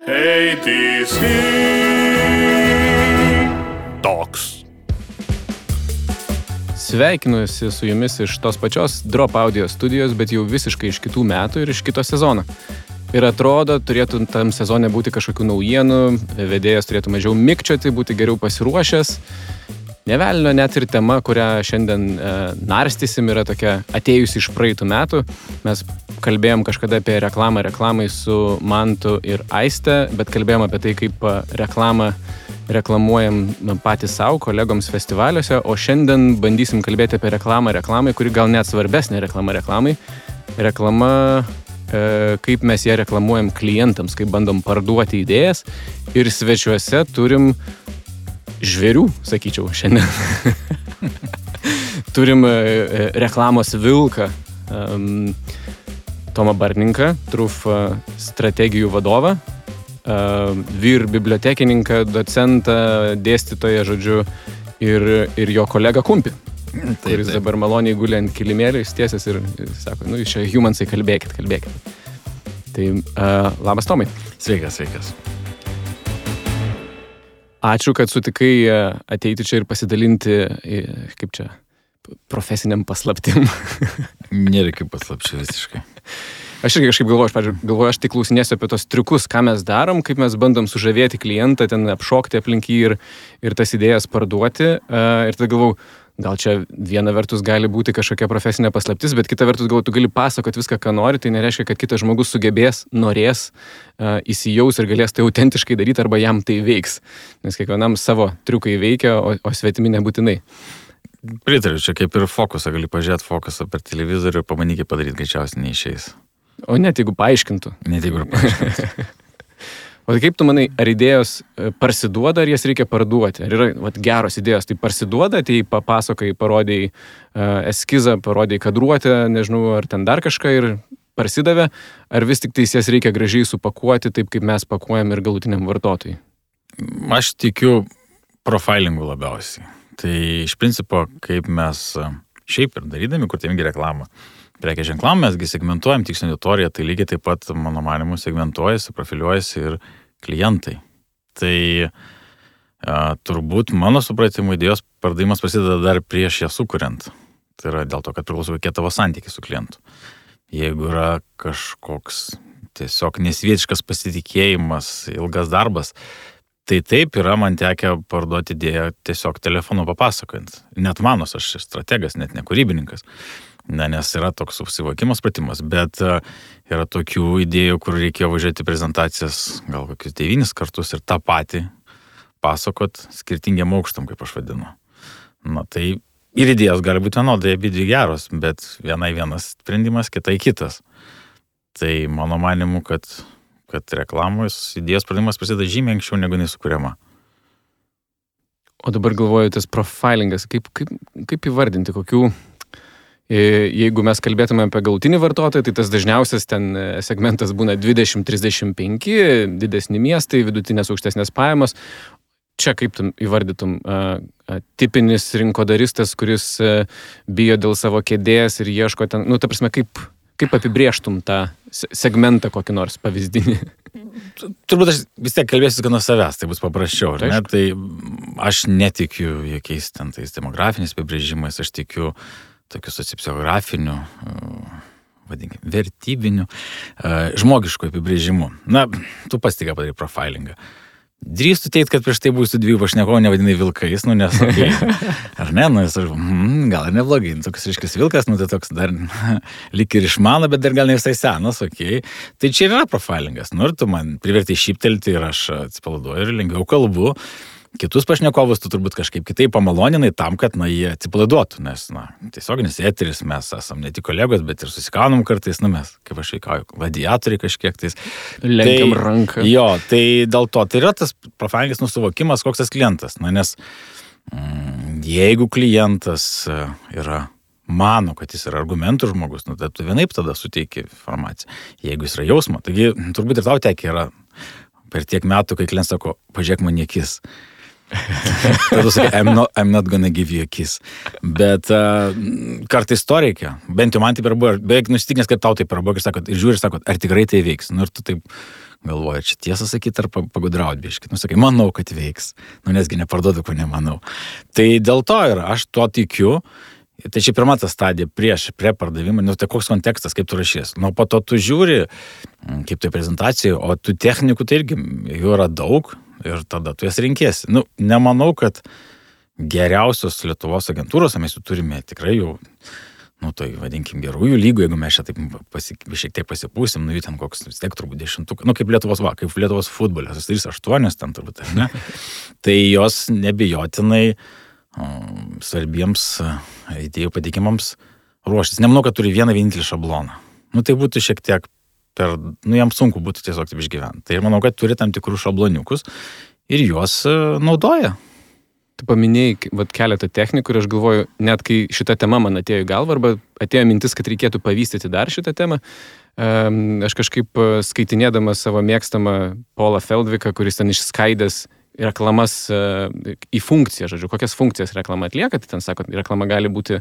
ATC Talks. Sveikinuosi su jumis iš tos pačios Drop Audio studijos, bet jau visiškai iš kitų metų ir iš kito sezono. Ir atrodo, turėtų tam sezone būti kažkokių naujienų, vedėjas turėtų mažiau mikčioti, būti geriau pasiruošęs. Nevelnio net ir tema, kurią šiandien narstysim, yra tokia atėjusi iš praeitų metų. Mes kalbėjom kažkada apie reklamai su Mantu ir Aiste, bet kalbėjom apie tai, kaip reklamuojam patys savo kolegoms festivaliuose, o šiandien bandysim kalbėti apie reklamai, kuri gal net svarbesnė reklamai. Kaip mes ją reklamuojam klientams, kaip bandom parduoti idėjas. Ir svečiuose turim žvėrių, sakyčiau, šiandien. Turim reklamos vilką, Tomą Bartninką, Truf strategijų vadovą, vyr bibliotekininką, docentą, dėstytoją, žodžiu, ir jo kolegą Kumpį, kuris dabar maloniai guli ant kilimėlio, įstiesęs ir sako, jūs čia humansai, kalbėkit. Tai labas, Tomai. Sveikas. Ačiū, kad sutikai ateiti čia ir pasidalinti, profesiniam paslaptim. Nėra kaip paslapčių visiškai. Aš irgi kažkaip galvoju, aš tik klausinėsiu apie tos triukus, ką mes darom, kaip mes bandom sužavėti klientą, ten apšokti aplink jį ir tas idėjas parduoti. Ir tada galvoju, gal čia viena vertus gali būti kažkokia profesinė paslaptis, bet kita vertus galvoju, tu gali pasakoti viską, ką nori, tai nereiškia, kad kitas žmogus sugebės, norės, įsijaus ir galės tai autentiškai daryti arba jam tai veiks. Nes kiekvienam savo triukai veikia, o svetimi nebūtinai. Pritariu, čia kaip ir fokusą, gali pažiūrėti fokusą per televizorių ir pamanykį padaryti, greičiausiai neišeis. O net jeigu paaiškintų. O tai kaip tu manai, ar idėjos parsiduoda, ar jas reikia parduoti? Ar yra geros idėjos, tai parsiduoda, tai papasakai, parodėjai eskizą, parodėjai kadruotę, nežinau, ar ten dar kažką ir parsidavė, ar vis tik tai jas reikia gražiai supakuoti, taip kaip mes pakuojam ir galutiniam vartotojui? Aš tikiu profilingu labiausiai. Tai iš principo, kaip mes šiaip ir darydami, kur tėmingi reklamą, prekės ženklam mesgi segmentuojam tikslinę auditoriją, tai lygiai taip pat, mano manimu, segmentuojasi, profiliuojasi ir klientai. Tai turbūt mano supratimu idėjos pardavimas prasideda dar prieš ją sukuriant. Tai yra dėl to, kad priklauso kokie tavo santykiai su klientu. Jeigu yra kažkoks tiesiog nesvietiškas pasitikėjimas, ilgas darbas, tai taip yra man tekę parduoti idėją tiesiog telefonu papasakojant. Net manos, aš strategas, net ne kūrybininkas. Nes yra toks susivokimas, pratimas, bet yra tokių idėjų, kur reikėjo važiuoti prezentacijas gal kokius 9 kartus ir tą patį pasakot skirtingiam aukštam, kaip aš vadinu. Tai ir idėjos gali būti vienodai, abidvi geros, bet vienai vienas sprendimas, kitai kitas. Tai mano manimu, kad reklamos idėjos pradimas prasideda žymiai anksčiau negu jinai sukuriama. O dabar galvoju, tas profilingas, kaip įvardinti, kokių... Jeigu mes kalbėtume apie galutinį vartotoją, tai tas dažniausias ten segmentas būna 20-35, didesni miestai, vidutinės aukštesnės pajamos. Čia kaip tu įvardytum tipinis rinkodaristas, kuris bijo dėl savo kėdės ir ieško ten, ta prasme, kaip apibrėžtum tą segmentą kokį nors pavyzdinį? Turbūt aš vis tiek kalbėsiu nuo savęs, tai bus paprasčiau, ne? Tai aš netikiu jokiais ten tais demografiniais apibrėžimais, aš tikiu tokių sociopsichologinių, vertybinių, žmogiškų apibrėžimų. Tu pats tik padarai profilingą. Drįstu teikti, kad prieš tai būsiu 2 pašnekovų nevadinai vilkais, nes ar ne, gal ir neblogai, toks ryškis vilkas, tai toks dar lyg ir išmano, bet dar gal ne visai senas, Tai čia yra profilingas, ir tu man privertai šyptelti ir aš atsipalaiduoju ir lengviau kalbu. Kitus pašnekovus tu turbūt kažkaip kitaip pamaloninai tam, kad jie atsipalaiduotų, nes tiesioginis eteris, mes esam ne tik kolegos, bet ir susikaunam kartais, mes, kaip aš veikauju, gladiatoriai kažkiek tais. Lenkiam ranką. Jo, tai dėl to tai yra tas profilingas nusuvokimas, koks tas klientas, nes jeigu klientas mano, kad jis yra argumentų žmogus, tai tu vienaip tada suteiki informaciją, jeigu jis yra jausmo, taigi turbūt ir tau tekia yra per tiek metų, kai klientas sako, pažiūrėk man į akis. Tada sakai, I'm not gonna give you a kiss. Bet kartais to reikia. Bent jau man taip ir buvo. Beveik nusitikinęs, kad tau taip ir buvo. Ir žiūri, sakot, ar tikrai tai veiks. Nu, ir tu taip galvoji, čia tiesą sakyti, ar pagudraut biškit. Nu, sakai, manau, kad veiks. Nu, nesgi neparduodu, ko nemanau. Tai dėl to ir aš tuo tikiu. Tai čia pirma ta stadija prie pardavimą. Nu, tai koks kontekstas, kaip tu rašys. Nu, po to tu žiūri, kaip tai prezentacija, o tų technikų tai irgi jų yra daug. Ir tada tu jas rinkėsi. Nu, nemanau, kad geriausios Lietuvos agentūros, mes jų turime tikrai jau, nu, tai vadinkim gerųjų lygų, jeigu mes čia taip šiek tiek pasipūsim, nu, jų ten koks, vis tiek turbūt 10, nu, kaip Lietuvos futbolas, 3-8 ten turbūt, ne? Tai jos nebijotinai svarbiems idėjų pateikimams ruoštis. Nemanau, kad turi vieną vienintelį šabloną. Nu, tai būtų šiek tiek jam sunku būtų tiesiog taip išgyventi. Tai ir manau, kad turi tam tikrų šabloniukus ir juos naudoja. Tu paminėjai keletą technikų ir aš galvoju, net kai šita tema man atėjo į galvą arba atėjo mintis, kad reikėtų pavystyti dar šitą temą, aš kažkaip skaitinėdamas savo mėgstamą Paulą Feldviką, kuris ten išskaidęs reklamas į funkciją, žodžiu, kokias funkcijas reklama atlieka, tai ten sako, reklama gali būti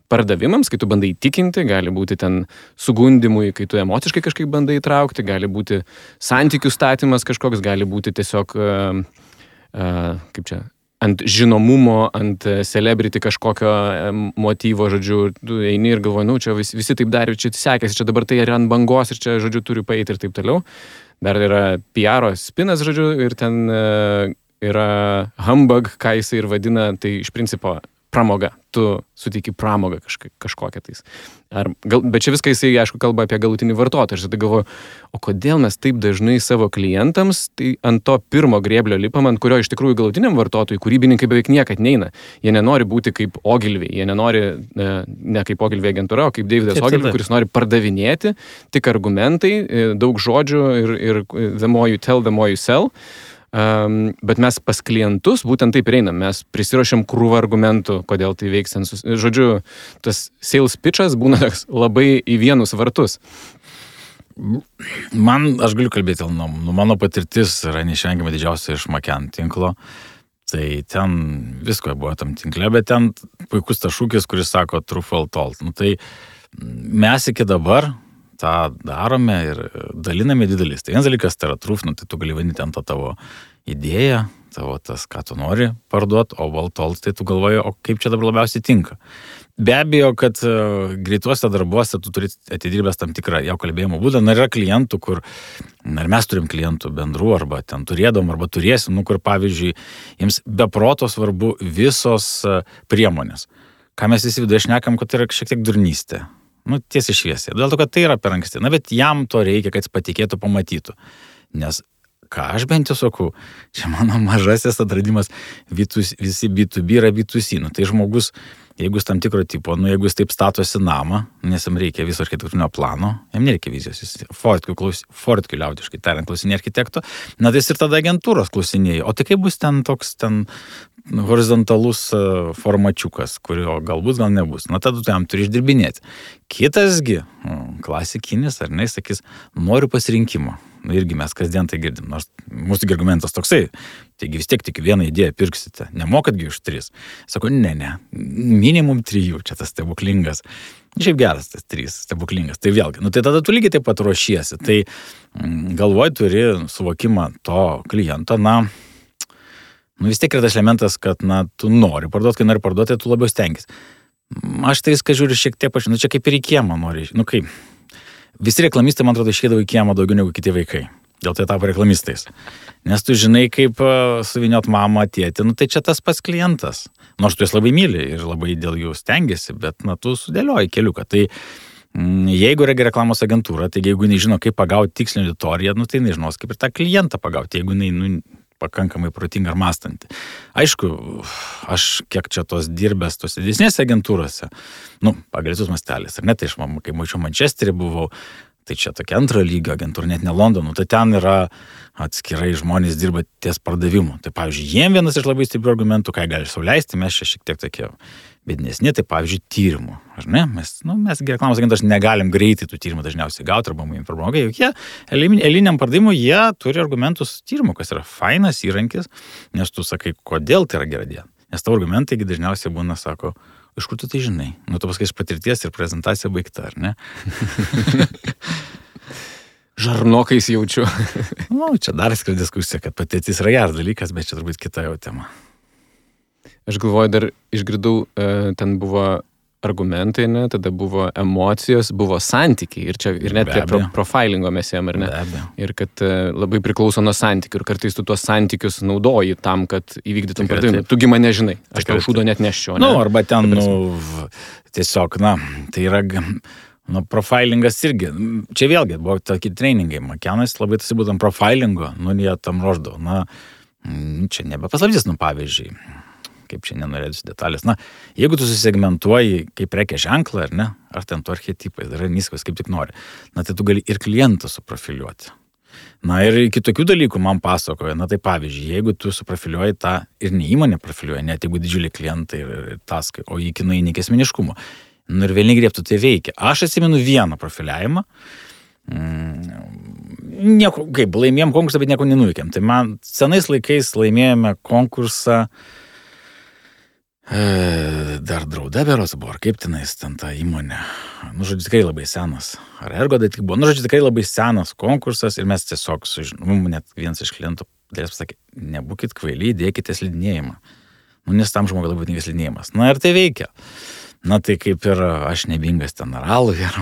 pardavimams, kai tu bandai įtikinti, gali būti ten sugundimui, kai tu emociškai kažkaip bandai įtraukti, gali būti santykių statymas kažkoks, gali būti tiesiog, kaip čia, ant žinomumo, ant celebrity kažkokio motyvo, žodžiu, tu eini ir galvoji, nu, čia visi taip darė, čia sekėsi, čia dabar tai yra ant bangos ir čia, žodžiu, turiu paeiti ir taip toliau. Dar yra PR spinas, žodžiu, ir ten yra humbug, ką jisai ir vadina, tai iš principo pramoga. Tu suteiki pramogą kažkokią tais. Bet čia viską jisai, aišku, kalba apie galutinį vartotoją. Aš tada galvoju, o kodėl mes taip dažnai savo klientams tai ant to pirmo grėblio lipam, ant kurio iš tikrųjų galutiniam vartotojui kūrybininkai beveik niekad neina. Jie nenori būti kaip Ogilvy, jie nenori ne kaip Ogilvy agentūra, o kaip Davidas Ogilvy, kuris nori pardavinėti, tik argumentai, daug žodžių ir the more you tell, the more you sell. Bet mes pas klientus būtent taip einam, mes prisiruošiam krūvą argumentų, kodėl tai veiks. Žodžiu, tas sales pitchas būna labai į vienus vartus. Aš galiu kalbėti, mano patirtis yra neišvengiamai didžiausia iš Maken tinklo. Tai ten visko buvo tam tinkle, bet ten puikus tas šūkis, kuris sako true fall told. Nu, tai mes iki dabar tą darome ir daliname didelis. Tai vienas dalykas, tai yra truth, nu, tai tu gali vadinti ant to tavo idėją, tavo tas, ką tu nori parduoti, o valtold, tai tu galvoji, o kaip čia dabar labiausiai tinka. Be abejo, kad greituose darbuose tu turi atidirbęs tam tikrą jau kalbėjimo būdą. Na, yra klientų, kur, ir mes turim klientų bendrų, arba ten turėdom, arba turėsim, nu, kur, pavyzdžiui, jiems beproto svarbu visos priemonės. Ką mes visi viduje šnekam, kad tai yra šiek tiek durnystė. Nu, tiesiai šviesiai. Dėl to, kad tai yra per anksti. Na, bet jam to reikia, kad jis patikėtų, pamatytų. Nes, ką aš bent jau sakau, čia mano mažasis atradimas, visi B2B yra B2C. Nu, tai žmogus, jeigu jis tam tikro tipo, nu, jeigu jis taip statosi namą, nes jam reikia viso architektūrinio plano, jam nereikia vizijos, jis Fortkiu liaudiškai tariant klausinė architekto, na, tai jis ir tada agentūros klausinėja. O tai kaip bus ten toks horizontalus formačiukas, kurio galbūt gal nebus. Na, tada tu jam turi išdirbinėti. Kitasgi, klasikinis, ar ne, sakys, noriu pasirinkimo. Nu, irgi mes kasdien tai girdim. Nors mūsų argumentas toksai, taigi vis tiek tik vieną idėją pirksite. Nemokatgi už 3. Sako, ne, minimum 3, čia tas stebuklingas. Šiaip geras tas 3, stebuklingas. Tai vėlgi, nu tai tada tu lygiai taip pat ruošiesi. Tai galvoj turi suvokimą to kliento, nu vis tiek yra tas elementas, kad, tu nori parduoti, kai nori parduoti, tai tu labiau stengis. Aš tai viską žiūriu šiek tiek čia kaip ir į kiemą nori. Nu kaip, visi reklamistai, man atrodo, išeidavo į kiemą daugiau negu kiti vaikai. Dėl tai tapo reklamistais. Nes tu žinai, kaip suviniot mamą, tėtį, tai čia tas pats klientas. Nors tu jas labai myli ir labai dėl jų stengiasi, bet, tu sudėlioji keliuką. Tai jeigu yra reklamos agentūra, tai jeigu nežino, kaip pagauti tikslinį auditoriją, tai nežinos, kaip ir tą klientą pagauti, jeigu pakankamai protinga ar mąstanti. Aišku, aš kiek čia tos dirbęs tos didesnėse agentūrose, pagal visus masteliais, ar ne, tai aš, kai mačiau Mančesterį buvau, Tai čia tokia antro lygio agentūra, net ne Londonų, tai ten yra atskirai žmonės dirba ties pardavimu. Tai pavyzdžiui, jiem vienas iš labai stiprių argumentų, ką gali sau leisti, mes čia šiek tiek tokie bėdnesni, tai pavyzdžiui, tyrimų. Ar ne? Mes reklamos agentas negalim greitai tų tyrimų dažniausiai gauti arba mums informuoja, juk jie eiliniam pardavimui jie turi argumentus tyrimų, kas yra fainas įrankis, nes tu sakai, kodėl tai yra gera diena. Nes tavo argumentai dažniausiai būna, sako, iš kur tu tai žinai? Nu, tu pasakai iš patirties ir prezentacija baigta, ar ne? Žarnokais jaučiu. Nu, čia dar skir diskusija, kad patirtis yra geras dalykas, bet čia turbūt kita jau tema. Aš galvoju, dar išgirdau, ten buvo argumentai, ne? Tada buvo emocijos, buvo santykiai ir net prie profilingo mes jam, ar ne? Ir kad labai priklauso nuo santykių ir kartais tu tuos santykius naudoji tam, kad įvykdytum pardavimą. Tugi mane žinai, aš tau šūdo net neščiau. Nu, arba ten, tiesiog, tai yra, profilingas irgi. Čia vėlgi buvo tokie treningai. Makenas labai tas būtent profilingo, jie tam ruoždavo. Čia nebepaslaptis, pavyzdžiui. Kaip čia nenorėdus detalės. Jeigu tu susegmentuoji kaip prekės ženklą, ar ne, ar ten tu archetipais, darai niskas, kaip tik nori, tai tu gali ir klientą suprofiliuoti. Ir kitokių dalykų man pasakoja, tai pavyzdžiui, jeigu tu suprofiliuoji tą ir ne įmonė profiliuoja, net jeigu didžiuliai klientai ir taskai, o iki nueini iki asmeniškumo, ir vėl negriebtų tai veikia. Aš atsimenu vieną profiliavimą, nieko, kaip, laimėjom konkursą, bet nieko nenuveikėm. Tai man senais laikais laimėjome konkursą dar Drauda beros buvo, ar kaip tenais ten ta įmonė. Žodžiu, tikrai labai senas. Ar Ergo tai tik buvo. Žodžiu, tikrai labai senas konkursas ir mes tiesiog, net vienas iš klientų dėlės pasakė, nebūkit kvailiai, dėkite slidinėjimą. Nes tam žmogui labai būtingas slidinėjimas. Ir tai veikia. Tai kaip ir aš nebingas ten aralų ir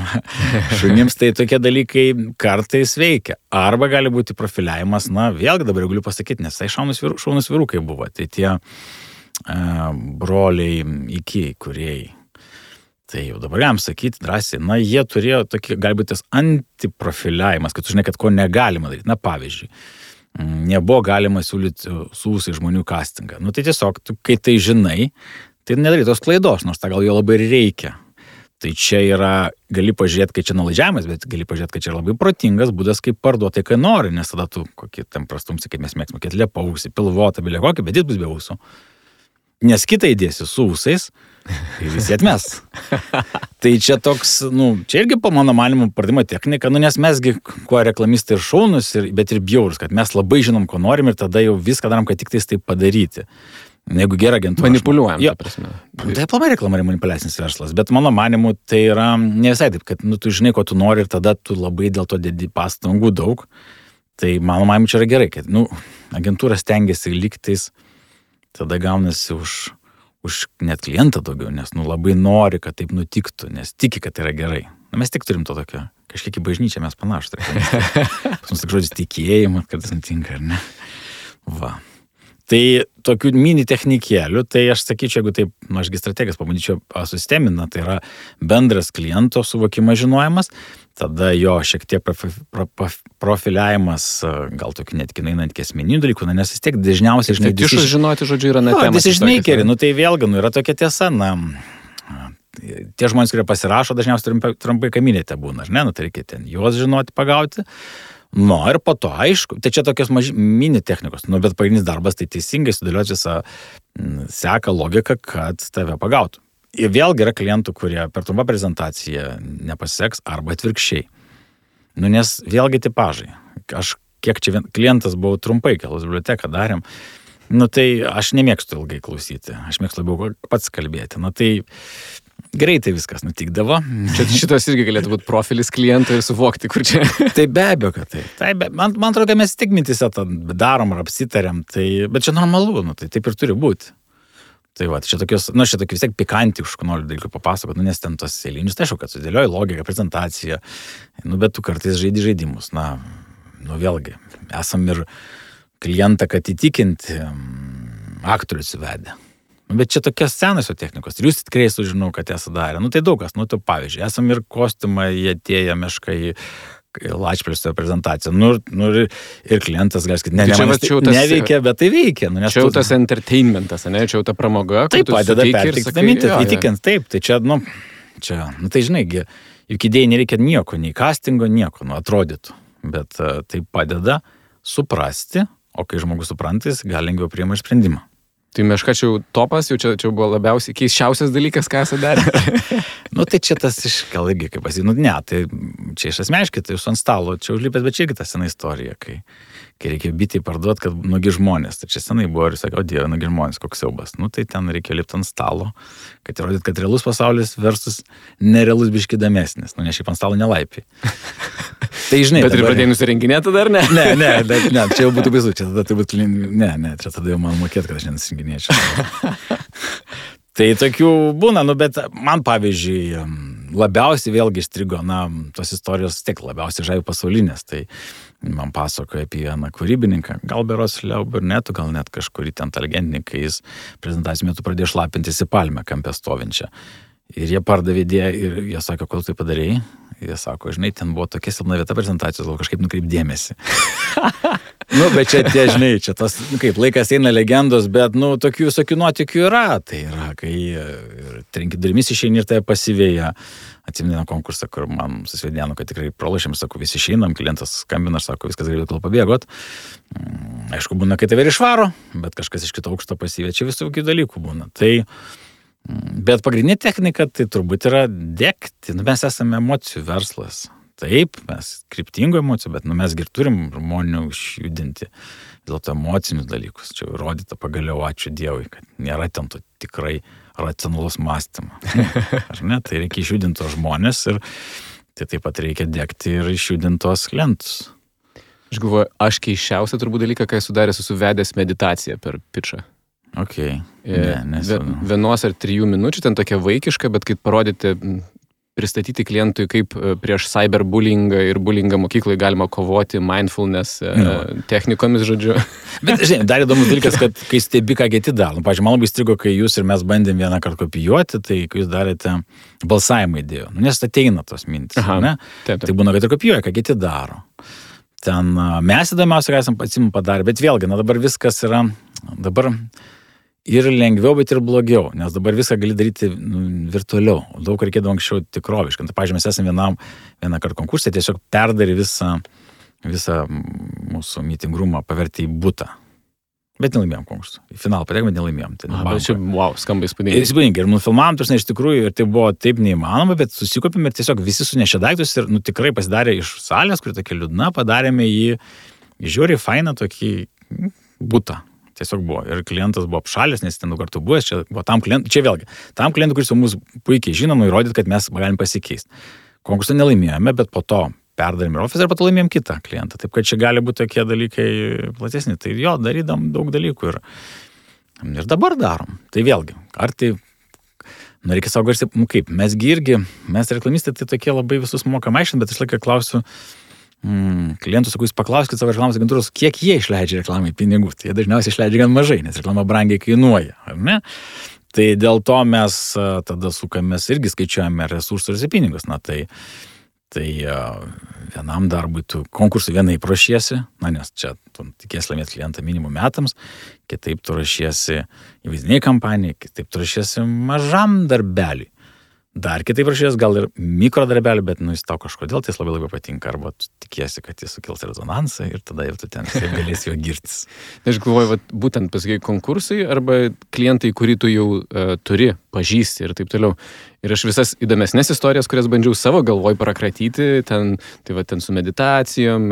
šunims, tai tokie dalykai kartais veikia. Arba gali būti profiliavimas, vėlgi dabar galiu pasakyti, nes tai šaunus vyrukai buvo. Tai tie broliai iki kūrėjai. Tai jau dabar galim sakyti drąsiai, jie turėjo tokį, galbūt tas antiprofiliavimas, kad tu žinai, kad ko negalima daryti. Pavyzdžiui, nebuvo galima siūlyti su ūsai žmonių castingą. Tai tiesiog, tu, kai tai žinai, tai nedarai tos klaidos, nors tą gal jo labai reikia. Tai čia yra, gali pažiūrėti, kai čia nuolaidžiavimas, bet gali pažiūrėti, kad čia yra labai protingas būdas, kaip parduoti, kai nori, nes tada tu kokį tam prastumsi, kaip mes mėgsime, kad liepausi, pilvotą, bilė kokį, bet jis bus be ūsų. Nes kitą įdėsi su ūsais ir visi atmes. Tai čia toks, čia irgi po mano manymu pardavimo technika, nes mesgi kuo reklamistai ir šaunus, bet ir bjaurus, kad mes labai žinom, ko norim ir tada jau viską darom, kad tik tais taip padaryti. Jeigu gera agentūra. Manipuliuojam, ta prasme. Tai aplamai reklama yra manipuliacinis verslas, bet mano manimu tai yra ne visai taip, kad tu žinai, ko tu nori ir tada tu labai dėl to dedi pastangų daug. Tai mano manimu čia yra gerai, kad agentūra stengiasi liktais, tada gaunasi už net klientą daugiau, nes labai nori, kad taip nutiktų, nes tiki, kad tai yra gerai. Mes tik turim to tokio, kažkiek į bažnyčią mes panašus. Pas mus tik žodis tikėjimas, kartais nutinka, ar ne? Va. Tai tokių mini technikėlių, tai aš sakyčiau, jeigu taip, ašgi strategijas pabandyčiau susistemina, tai yra bendras kliento suvokimas, žinojimas, tada jo šiek tiek profiliavimas, gal tokių netgi einant iki asmeninių dalykų, nes vis tiek dažniausiai, žinai, tišus žinoti, žodžiu, yra net temas. Decision-makeri, tai vėlgi, yra tokia tiesa, tie žmonės, kurie pasirašo, dažniausiai trumpai kaminėte būna, ar ne, tai reikia ten juos žinoti, pagauti. Ir po to, aišku, tai čia tokios mini technikos, bet pagrindinis darbas tai teisingai sudėlioti visą seką logiką, kad tave pagautų. Ir vėlgi yra klientų, kurie per trumpą prezentaciją nepasiseks arba atvirkščiai. Nes vėlgi tipažai. Aš kiek čia klientas buvau trumpai, kelos biblioteką darėm, tai aš nemėgstu ilgai klausyti, aš mėgstu labiau pats kalbėti. Tai greitai viskas nutikdavo. Šitas irgi galėtų būti profilis kliento ir suvokti, kur čia. Tai be abejo, kad tai. Man atrodo, kad mes tik mintise tą darom ar apsitarėm, bet čia normalu, tai taip ir turi būti. Tai va, čia tokios, vis tiek pikantiškų noriu dalykų papasakoti, nes ten tos eilinius, tai aišku, kad sudėlioji logiką, prezentaciją, bet tu kartais žaidi žaidimus, vėlgi, esam ir klientą, kad įtikinti aktorius įvedę. Bet čia tokios senosios technikos. Ir jūs tikrai sužinau, kad esate darę. Tai daug kas. Tai pavyzdžiui, esam ir kostiumą, jie atėję meškai Lačplėsio prezentaciją. Ir klientas gali sakyti, neveikia, bet tai veikia. Čia jau tas entertainmentas, ne? Čia jau ta pramoga. Taip, padeda perteikti mintį, įtikint. Taip, tai čia, tai žinai, juk idėjai nereikia nieko, nei castingo, nieko, atrodytų. Bet tai padeda suprasti, o kai žmogus suprantas, gali lengviau priima sprendimą. Tai Meška čia jau topas, jau čia buvo labiausiai keisčiausias dalykas, ką esate darę. Tai čia tas gal irgi, kaip pasakyti, ne, tai čia iš asmeniškai, tai jūs ant stalo, čia užlipęs, bet čia irgi ta sena istorija, kai reikia bitį parduoti, kad nugi žmonės, tai čia senai buvo ir sakė, o Dieve, nugi žmonės, koks siaubas. Tai ten reikia lipti ant stalo, kad įrodyt, kad realus pasaulis versus nerealus biški įdomesnis, ne šiaip ant stalo nelaipiai. Tai žinai, bet ir pradėjai nusirenginėti dar, ne? Ne, čia jau būtų baisu, čia tada turbūt, čia tada jau man mokėt, kad aš nenusirenginėčiau. Tai tokių būna, bet man pavyzdžiui, labiausiai vėlgi įstrigo, tos istorijos tiek labiausiai žavi pasaulinės, tai man pasakoja apie vieną kūrybininką, gal beros Leo Burnetų, gal net kažkurį ten legendininką, jis prezentacijų metu pradėjo šlapintis į palmę kampę stovinčią. Ir jie pardavė idėją ir jie sakė, kodėl tai padarėjai? Jie sako, žinai, ten buvo tokia silpna vieta prezentacijos, gal kažkaip nukreip dėmesį. Bet čia tie, žinai, čia tas, kaip laikas eina legendos, bet, tokių visokių nuotykių yra. Tai yra, kai trenki durimis išeini ir tai pasivėja. Atsimenu konkursą, kur man susvedėnu, kad tikrai pralašėm, sako, visi išeinam, klientas skambina, sako, viskas galėtų kol pabėgot. Aišku, būna, kai tave ir išvaro, bet kažkas iš kito aukšto pasivė, čia visokių dalykų būna. Bet pagrindinė technika tai turbūt yra degti. Mes esame emocijų verslas. Taip, mes kryptingų emocijų, bet mes ir turim žmonių išjudinti dėl to emocinius dalykus. Čia įrodyta pagaliau, ačiū Dievui, kad nėra ten to tikrai racionalus mąstymo. Ar ne? Tai reikia išjudinti tos žmonės ir tai taip pat reikia degti ir išjudinti tos klientus. Aš galvoju, aš keisčiausią turbūt dalyką, kai esu daręs, esu vedęs meditaciją per pitchą. Okay. Vienos ar 3 minučių, ten tokia vaikiška, bet kaip parodyti, pristatyti klientui, kaip prieš cyberbullyingą ir bullyingą mokyklai galima kovoti mindfulness technikomis, žodžiu. Bet, žinai, dar įdomus dalykas, kad kai stebi, ką kiti daro. Pavyzdžiui, man labai strigo, kai jūs ir mes bandėm vieną kartą kopijuoti, tai kai jūs darėte balsavimą idėjų. Nes ateina tos mintis, ne? Taip. Tai būna, kad ir kopijuoja, ką kiti daro. Ten mes įdomiausia, ką esam patsim padarę, bet vėlgi, dabar viskas yra, dabar ir lengviau, bet ir blogiau, nes dabar viską gali daryti virtualiau. Daug reikėdavo anksčiau tikroviškai. Tai, pavyzdžiui, mes esame vieną kartą konkursą, tiesiog perdarė visą mūsų meeting roomą, pavertė į butą. Bet nelaimėjom konkursą. Į finalą patekome, nelaimėjom. Bet čia, skamba įspūdingai. Įspūdingai. Ir nufilmavom, iš tikrųjų, ir tai buvo taip neįmanoma, bet susikopėme ir tiesiog visi sunešė daiktus ir tikrai pasidarė iš salės, kuri tokia liūdna, padarėme jį žiūri fainą tokį butą. Tiesiog buvo. Ir klientas buvo apšalęs, nes ten daug kartų buvęs. Čia buvo tam klientui, tam klientui, kuris jau mus puikiai žino, įrodyti, kad mes galim pasikeisti. Konkursą nelaimėjome, bet po to perdarėme ir ofisą ir po to laimėjom kitą klientą. Taip, kad čia gali būti tokie dalykai platesni. Tai jo, darydam daug dalykų ir dabar darom. Tai vėlgi, ar tai, reikia savo garsiai, kaip, mes reklamistai tai tokie labai visus mokam aiškinti, bet aš laiką klausiu, klientų, sakau, jūs paklauskite savo reklamos agentūros, kiek jie išleidžia reklamai pinigų. Tai jie dažniausiai išleidžia gan mažai, nes reklama brangiai kainuoja, ar ne? Tai dėl to mes tada sukamės irgi skaičiuojame resursus ir pinigus. Tai vienam darbui tu konkursui vienaip ruošiesi, nes čia tu tikės laimėti klientą minimum metams, kitaip tu ruošiesi įvaizdiniai kampanijai, kitaip tu ruošiesi mažam darbeliui. Dar kitaip rašės, gal ir mikrodarbelį, bet jis tau kažkodėl tai labai patinka, arba tu tikiesi, kad jis sukels rezonansą ir tada jau tu ten galėsi jo girtis. Aš galvoju, būtent pasakai konkursai arba klientai, kurį tu jau turi, pažįsti ir taip toliau. Ir aš visas įdomesnės istorijas, kurias bandžiau savo galvoj prakratyti, ten su meditacijom,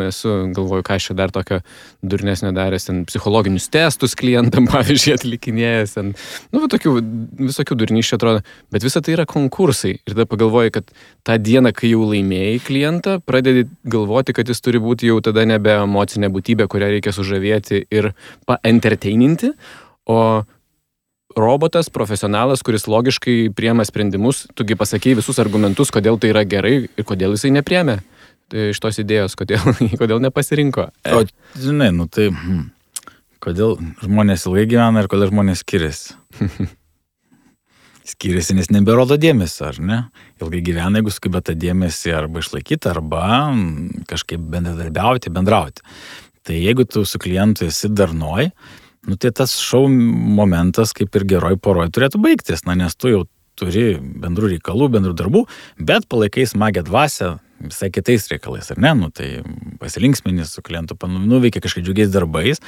galvoju, ką aš čia dar tokio durnesnio daręs, ten psichologinius testus klientam, pavyzdžiui, atlikinėjęs, tokių visokių durnyščių atrodo, bet visa tai yra konkursai. Ir tada pagalvoju, kad tą dieną, kai jau laimėjai klientą, pradedi galvoti, kad jis turi būti jau tada nebe emocinė būtybė, kurią reikia sužavėti ir paentertaininti, o robotas, profesionalas, kuris logiškai priema sprendimus, tugi pasakei visus argumentus, kodėl tai yra gerai ir kodėl jisai nepriemė iš tos idėjos, kodėl nepasirinko. O, žinai, tai kodėl žmonės ilgai gyvena ir kodėl žmonės skiriasi? Skiriasi, nes neberodo dėmesio, ar ne? Ilgai gyvena, jeigu sugeba tą dėmesį arba išlaikyti, arba kažkaip bendrauti. Tai jeigu tu su klientu esi darnoj, tai tas šou momentas kaip ir geroj poroj turėtų baigtis, nes tu jau turi bendrų reikalų, bendrų darbų, bet palaikai smagią dvasią visai kitais reikalais, ar ne? Nu, tai pasilinksminis su klientu, nuveikia kažkaip džiugiais darbais,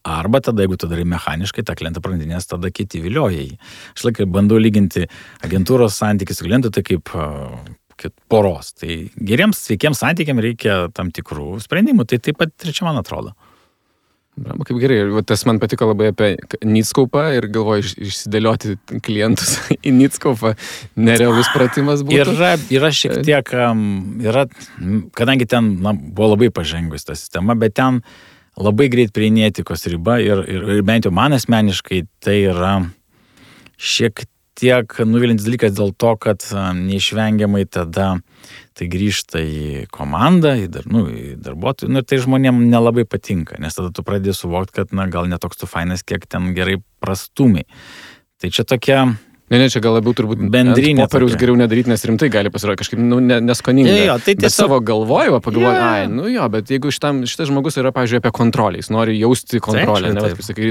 arba tada, jeigu tu darai mechaniškai, tą klientą prarandinės, tada kiti vilioja jį. Aš laikai bandau lyginti agentūros santykį su klientu, tai kaip poros. Tai geriems, sveikiems santykiams reikia tam tikrų sprendimų, tai taip pat trečia man atrodo. Bravo, kaip gerai. Tas man patiko labai apie Nitskaupą ir galvoju išsidėlioti klientus į Nitskaupą. Nerealus pratimas būtų. Yra šiek tiek, kadangi ten buvo labai pažengus ta sistema, bet ten labai greit prieini etikos riba ir bent jau man asmeniškai tai yra šiek tiek nuvilintis dalykas dėl to, kad neišvengiamai tada tai grįžta į komandą, į darbuotojų, ir tai žmonėm nelabai patinka, nes tada tu pradėjai suvokti, kad gal netoks tu fainas, kiek ten gerai prastumiai. Tai čia tokia... Ne, čia gal labiau turbūt bendrinė. Popieriaus geriau nedaryti, nes rimtai gali pasirodyti kažkaip neskoninga. Tai bet savo galvojimą pagalvoju, bet jeigu šitas žmogus yra, pavyzdžiui, apie kontrolę, jis nori jausti kontrolę,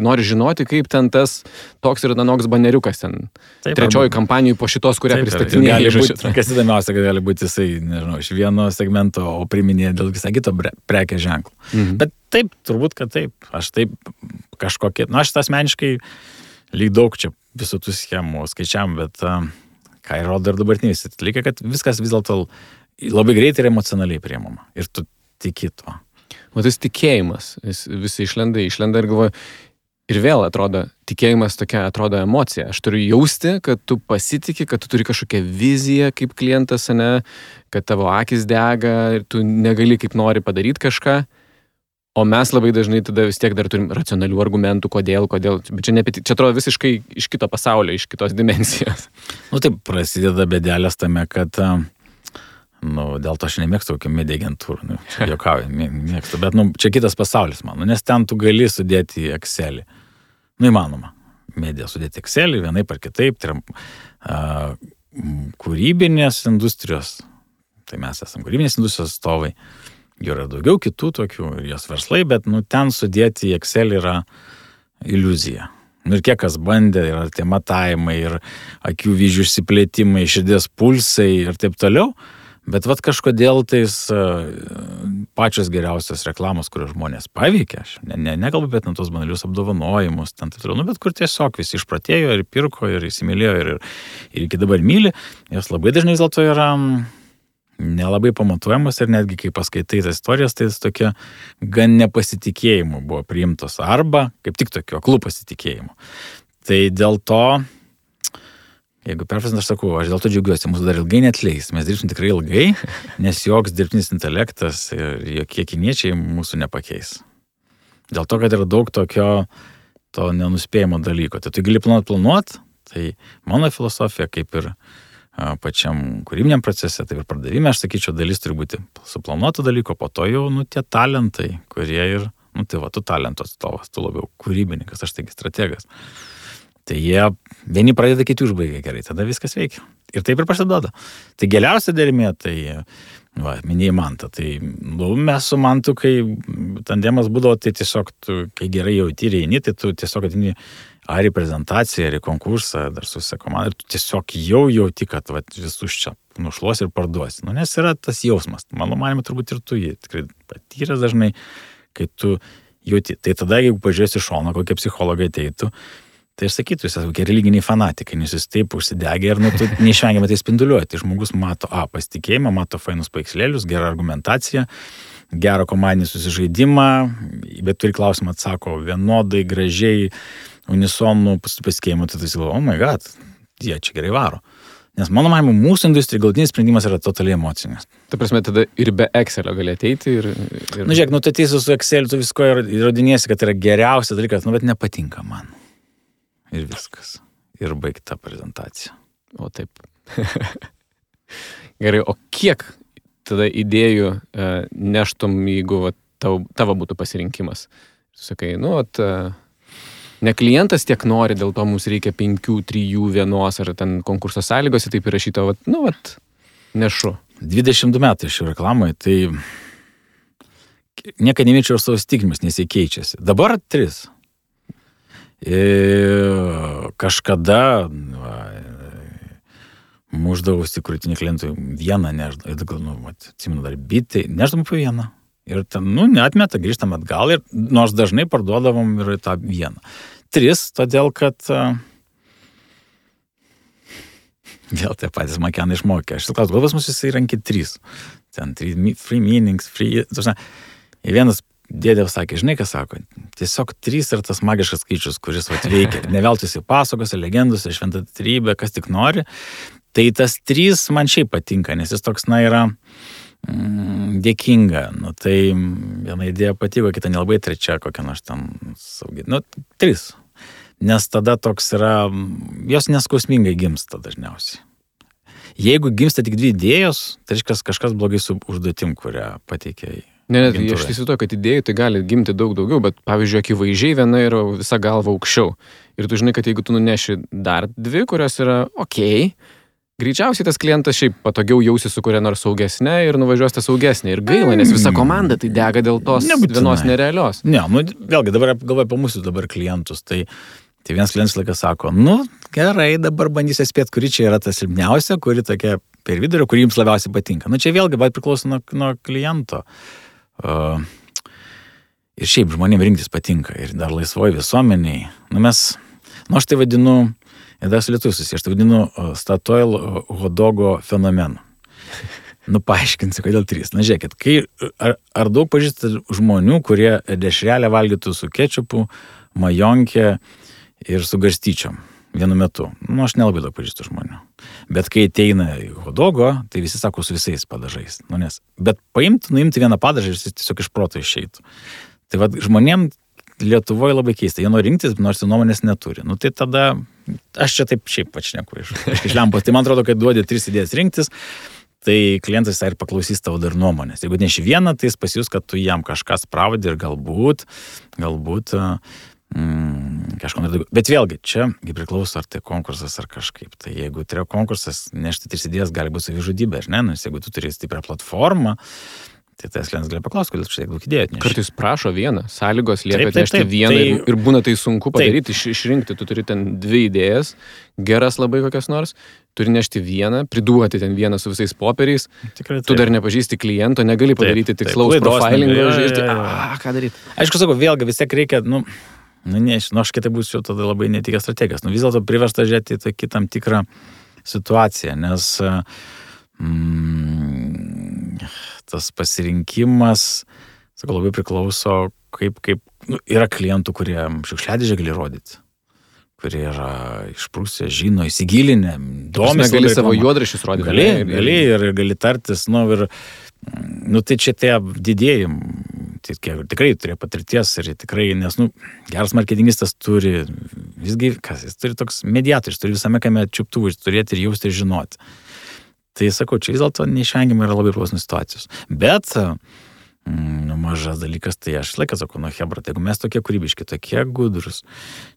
nori žinoti, kaip ten tas toks ir anoks baneriukas ten. Trečioji kampanijai po šitos, kurią pristatinėja. Kas įdomiausia, kad gali būti jisai, nežinau, iš vieno segmento, o priminėja dėl visą kito prekės ženklų. Bet taip, turbūt, kad taip. Aš taip kažkokie, aš asmeniškai lyg daug čia visų tų schemų skaičiam, bet ką įrodo ir dabartiniai dalykai, kad viskas vis dėlto labai greitai ir emocionaliai priimama. Ir tu tiki to. O tas tikėjimas, visi išlenda ir galvoju, ir vėl atrodo, tikėjimas tokia atrodo emocija. Aš turiu jausti, kad tu pasitiki, kad tu turi kažkokią viziją kaip klientas, ne, kad tavo akis dega ir tu negali kaip nori padaryti kažką. O mes labai dažnai tada vis tiek dar turim racionalių argumentų, kodėl. Bet čia atrodo visiškai iš kito pasaulio, iš kitos dimensijos. Taip, prasideda bėdelės tame, kad, dėl to aš nemėgstu kokią media agentūrą, juokauju, mėgstu, bet, čia kitas pasaulis man, nes ten tu gali sudėti į Excelį. Įmanoma, media sudėti Excelį, vienaip ar kitaip, tai yra kūrybinės industrijos, tai mes esame kūrybinės industrijos atstovai. Jų yra daugiau kitų tokių ir jos verslai, bet ten sudėti į Excel yra iliuzija. Ir kiek kas bandė, yra tie matavimai ir akių vyzdžių išsiplėtimai, širdies pulsai ir taip toliau, bet kažkodėl tais pačios geriausios reklamos, kurios žmonės paveikia, aš nekalbu apie tos banalius apdovanojimus, taip toliau, bet kur tiesiog visi išpratėjo ir pirko ir įsimylėjo ir iki dabar myli, jos labai dažnai vis dėlto yra nelabai pamatuojamas ir netgi kai paskaitai tas istorijas, tai tokia gan nepasitikėjimu buvo priimtos arba kaip tik tokio aklų pasitikėjimu. Tai dėl to, jeigu perfrasint, aš sakau, aš dėl to džiaugiuosi, mūsų dar ilgai neatleis, mes dirbsim tikrai ilgai, nes joks dirbtinis intelektas ir jokie kiniečiai mūsų nepakeis. Dėl to, kad yra daug tokio to nenuspėjimo dalyko. Tai tu gali planuot, tai mano filosofija kaip ir pačiam kūrybiniam procese, tai ir pardavime, aš sakyčiau, dalis turi būti suplanuoto dalyko, po to jau, tie talentai, kurie ir, tu talento atstovas, tu labiau kūrybininkas, aš taigi strategas. Tai jie, vieni pradeda, kiti užbaigia gerai, tada viskas veikia. Ir taip ir pasiduoda. Tai geriausia dermė, tai, minėjai Mantą, tai, mes su Mantu, kai tandemas būdavo, tai tiesiog, kai gerai jauti ir eini, tai tu tiesiog atini ar į prezentaciją, ar į konkursą, dar su visa komanda, ir tu tiesiog jau jauti, kad visus čia nušluos ir parduosi. Nes yra tas jausmas. Mano manimo, turbūt ir tu jį tikrai patyręs dažnai, kai tu jauti. Tai tada, jeigu pažiūrėsi šoną, kokie psichologai ateitų, tai aš sakytų, jūs esate kokie religiniai fanatikai, nes jūs taip užsidegė ir tu neišvengiamai tai spinduliuoji. Tai žmogus mato pasitikėjimą, mato fainus paveikslėlius, gerą argumentaciją, gerą komandinį susižaidimą, bet turi klausimą atsako vienodai, gražiai, unisonų pasitikėjimų, tai tu oh my god, jie čia gerai varo. Nes mano manymu, mūsų industrijai galutinis sprendimas yra totaliai emocinis. Ta prasme, tada ir be Excelio gali ateiti ir... Žiūrėk, tu ateisi su Exceliu, tu visko įrodinėsi, kad tai yra geriausias dalykas, bet nepatinka man. Ir viskas. Ir baigta prezentacija. O taip. Gerai, o kiek tada idėjų neštum, jeigu tavo būtų pasirinkimas? Sakai, ne klientas tiek nori, dėl to mums reikia 5, 3, 1 ar ten konkurso sąlygose taip įrašyta, nešu. 22 metai šių reklamai, tai niekada nemėčiau savo stigmas, nes jie keičiasi. Dabar 3. Kažkada muždavausi krūtinį klientui vieną neždavau. Ir gal, atsimenu dar bitį, neždavau po vieną. Ir ten, neatmeta, grįžtam atgal ir nors dažnai parduodavom ir tą vieną. 3, todėl kad vėl tie patys makenai išmokė. Aš klausiu, gal pas mus jisai rankė 3. Ten 3 free meanings, free... Ir vienas dėdė sakė, žinai, ką sako, tiesiog 3 yra tas magiškas skaičius, kuris veikia. Neveltųsi pasakose, legendose, šventą trybę, kas tik nori. Tai tas 3 man šiaip patinka, nes jis toks, yra dėkinga. Tai viena idėja patiko, kita nelabai, trečia kokia nors ten saugi. 3. Nes tada toks yra, jos neskausmingai gimsta dažniausiai. Jeigu gimsta tik 2 idėjos, tai reiškia kažkas blogai su užduotim, kurią pateikė. Ne, aš įsivaizduoju, kad idėjų tai gali gimti daug daugiau, bet pavyzdžiui, akivaizdžiai viena yra visa galva aukščiau. Ir tu žinai, kad jeigu tu nuneši dar 2, kurios yra greičiausiai tas klientas šiaip patogiau jausi su kuria nors saugesnė ir nuvažiuos tą saugesnė. Ir gaila, nes visa komanda tai dega dėl tos vienos nerealios. Ne, vėlgi dabar galvoju apie mūsų dabar klientus. Tai vienas klientas laikas sako, gerai, dabar bandysiu spėti, kuri čia yra ta silpniausia, kuri tokia per vidurį, kuri jums labiausiai patinka. Čia vėlgi priklauso nuo kliento. Ir šiaip žmonėms rinktis patinka. Ir dar laisvoji visuomeniai. Aš tai vadinu, ir dar su lietuviu susiję, aš tai vadinu Statoil hodogo fenomenu. Paaiškinsiu, kodėl 3. Žiūrėkit, ar daug pažįstate žmonių, kurie dešrelę valgytų su kečupu, majonkė ir su garstyčiom vienu metu. Aš nelabai daug pažįstu žmonių. Bet kai ateina į hodogo, tai visi sako su visais padažais. Bet nuimti vieną padažą ir jis tiesiog iš proto išeitų. Tai žmonėm Lietuvoje labai keista. Jie nori rinktis, nors jų nuomonės neturi. Tai tada, aš čia taip šiaip pačneku iš lempos. Tai man atrodo, kad duodi 3 idėjas rinktis, tai klientas ir paklausys tavo dar nuomonės. Jeigu neši vieną, tai jis pasijus, kad tu jam kažką spravdi ir galbūt kažko nedaugiau. Bet vėlgi, čia priklauso, ar tai konkursas, ar kažkaip. Tai jeigu tai yra konkursas, nešti 3 idėjas gali būti savižudybė, ar ne? Nes jeigu tu turi stiprią platformą, tai tas klientas gali paklausti, kodėl čia tiek daug idėjų atneši. Kartais prašo vieną, sąlygos lieka atnešti vieną ir būna tai sunku padaryti, išrinkti. Tu turi ten 2 idėjas, geras labai kokias nors, turi nešti vieną, priduoti ten vieną su visais popieriais. Tu dar nepažįsti kliento, negali padaryti tikslaus profilingo, žiūrėti, ką daryti. Aišku, sakau, vėlgi vis tiek reikia, aš kitai būsiu tada labai netikęs strategijas. Vis dėlto priversta žiūrėti į tam tikrą situaciją, nes tas pasirinkimas, sakau, labai priklauso, kaip yra klientų, kurie šiukšliadėžę gali rodyti, kurie yra išprusę, žino, įsigilinę, domisi. Gali savo juodraščius rodyti. Gali ir gali tartis, tai čia tie didėjai, tikrai turėjo patirties ir tikrai, nes, geras marketingistas turi, visgi, jis turi toks mediatorius, turi visame kame čiuptuvų, turėti ir jausti ir žinoti. Tai sakau, čia vis dėlto neišvengiamai yra labai priklausomas situacijos. Bet mažas dalykas, tai aš laiką sakau, hebra, tai jeigu mes tokie kūrybiški, tokie gudrus,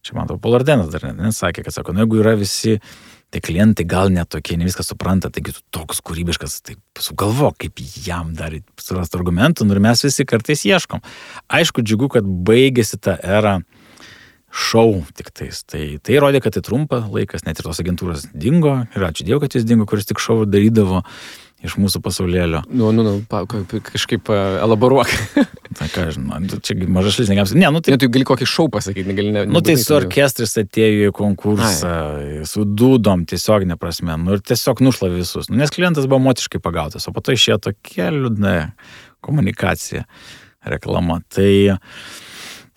čia man to Polardenas dar nesakė, kad sako, jeigu yra visi, tai klientai gal netokie, ne viską supranta, taigi tu toks kūrybiškas, tai sugalvok, kaip jam dar surasti argumentų, ir mes visi kartais ieškom. Aišku, džiugu, kad baigėsi ta era šou tiktais. Tai rodė, kad tai trumpa laikas, net ir tos agentūros dingo, ir ačiū Dievui, kad jis dingo, kuris tik šou darydavo iš mūsų pasaulėlio. Kažkaip elaboruok. Tai ką, čia mažas šalis negams. Tai gali kokį šou pasakyti, negali. Tai su orkestrais atėjo į konkursą, su dūdom tiesioginė prasme, ir tiesiog nušlavė visus. Nes klientas buvo motiškai pagautas, o po to išėjo tokia liūdna komunikacija, reklama. Tai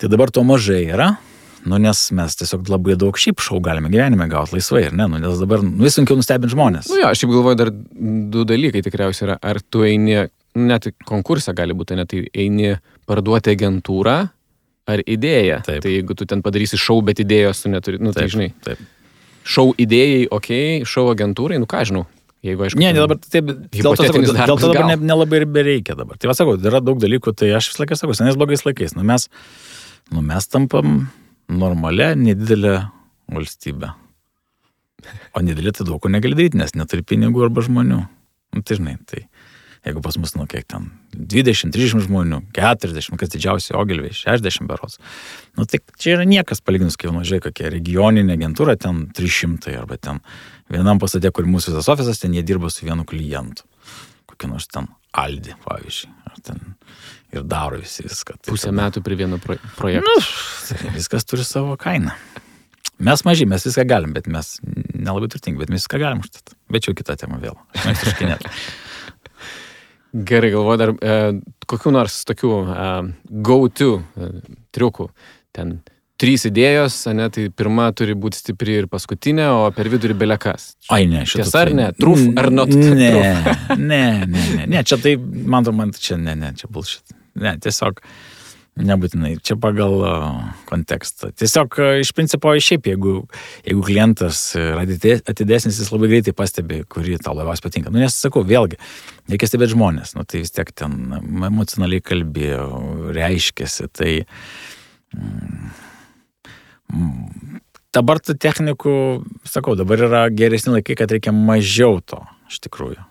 dabar to mažai yra. Nes mes tiesiog labai daug šiaip šou galime gyvenime gauti laisvai, ir ne? Nes dabar vis sunkiau nustebinti žmonės. Aš šiaip galvoju, dar 2 dalykai tikriausiai yra. Ar tu eini, net konkursą gali būti, net eini parduoti agentūrą, ar idėją. Taip. Tai jeigu tu ten padarysi šou, bet idėjos tu neturi, tai žinai. Taip. Šou idėjai, šou agentūrai, ką žinau. Jeigu, aišku, dabar taip, dėl to dabar nelabai ir bereikia dabar. Tai sakau, yra daug dalykų, tai aš vis laiką sakau, senais blogais laikais. Mes tampam normalia, nedidelė valstybė. O nedidelė tai daug ko negali daryti, nes neturi pinigų arba žmonių. Tai žinai, Jeigu pas mus, nu, kiek ten, 20-30 žmonių, 40, kas didžiausiai Ogilviai, 60 berods. Nu, tai čia yra niekas palyginus, kai nužiūrėjai, kokia regioninė agentūra, ten 300 arba ten vienam pastate, kur mūsų visas ofisas, ten jie dirba su vienu klientu. Kokį nors ten Aldi, pavyzdžiui. Ar ten ir daro visi viską. Tai Pusę metų prie vieno projekto. Nu, tai viskas turi savo kainą. Mes maži, mes viską galim, bet mes nelabai turtingi, bet mes viską galim užtat. Bet jau kita tema vėl. Aš mėgstu škinėti. Gerai, galvoju dar kokių nors tokių go-to triukų. Ten 3 idėjos, ne, tai pirma turi būti stipri ir paskutinė, o per vidurį belekas. Ai, ne, šitą. Tiesa ar ne? Truf ar not? Ne, čia tai, man čia čia bullshit. Ne, tiesiog nebūtinai, čia pagal kontekstą. Tiesiog iš principo šiaip, jeigu klientas yra atidesnis, jis labai greitai pastebi, kurį tau labiausiai patinka. Nu, nes sakau, vėlgi, reikia stebėti žmonės, nu, tai vis tiek ten emocionaliai kalbėjo, reiškėsi, tai dabar tų technikų, sakau, dabar yra geresni laikai, kad reikia mažiau to, iš tikrųjų.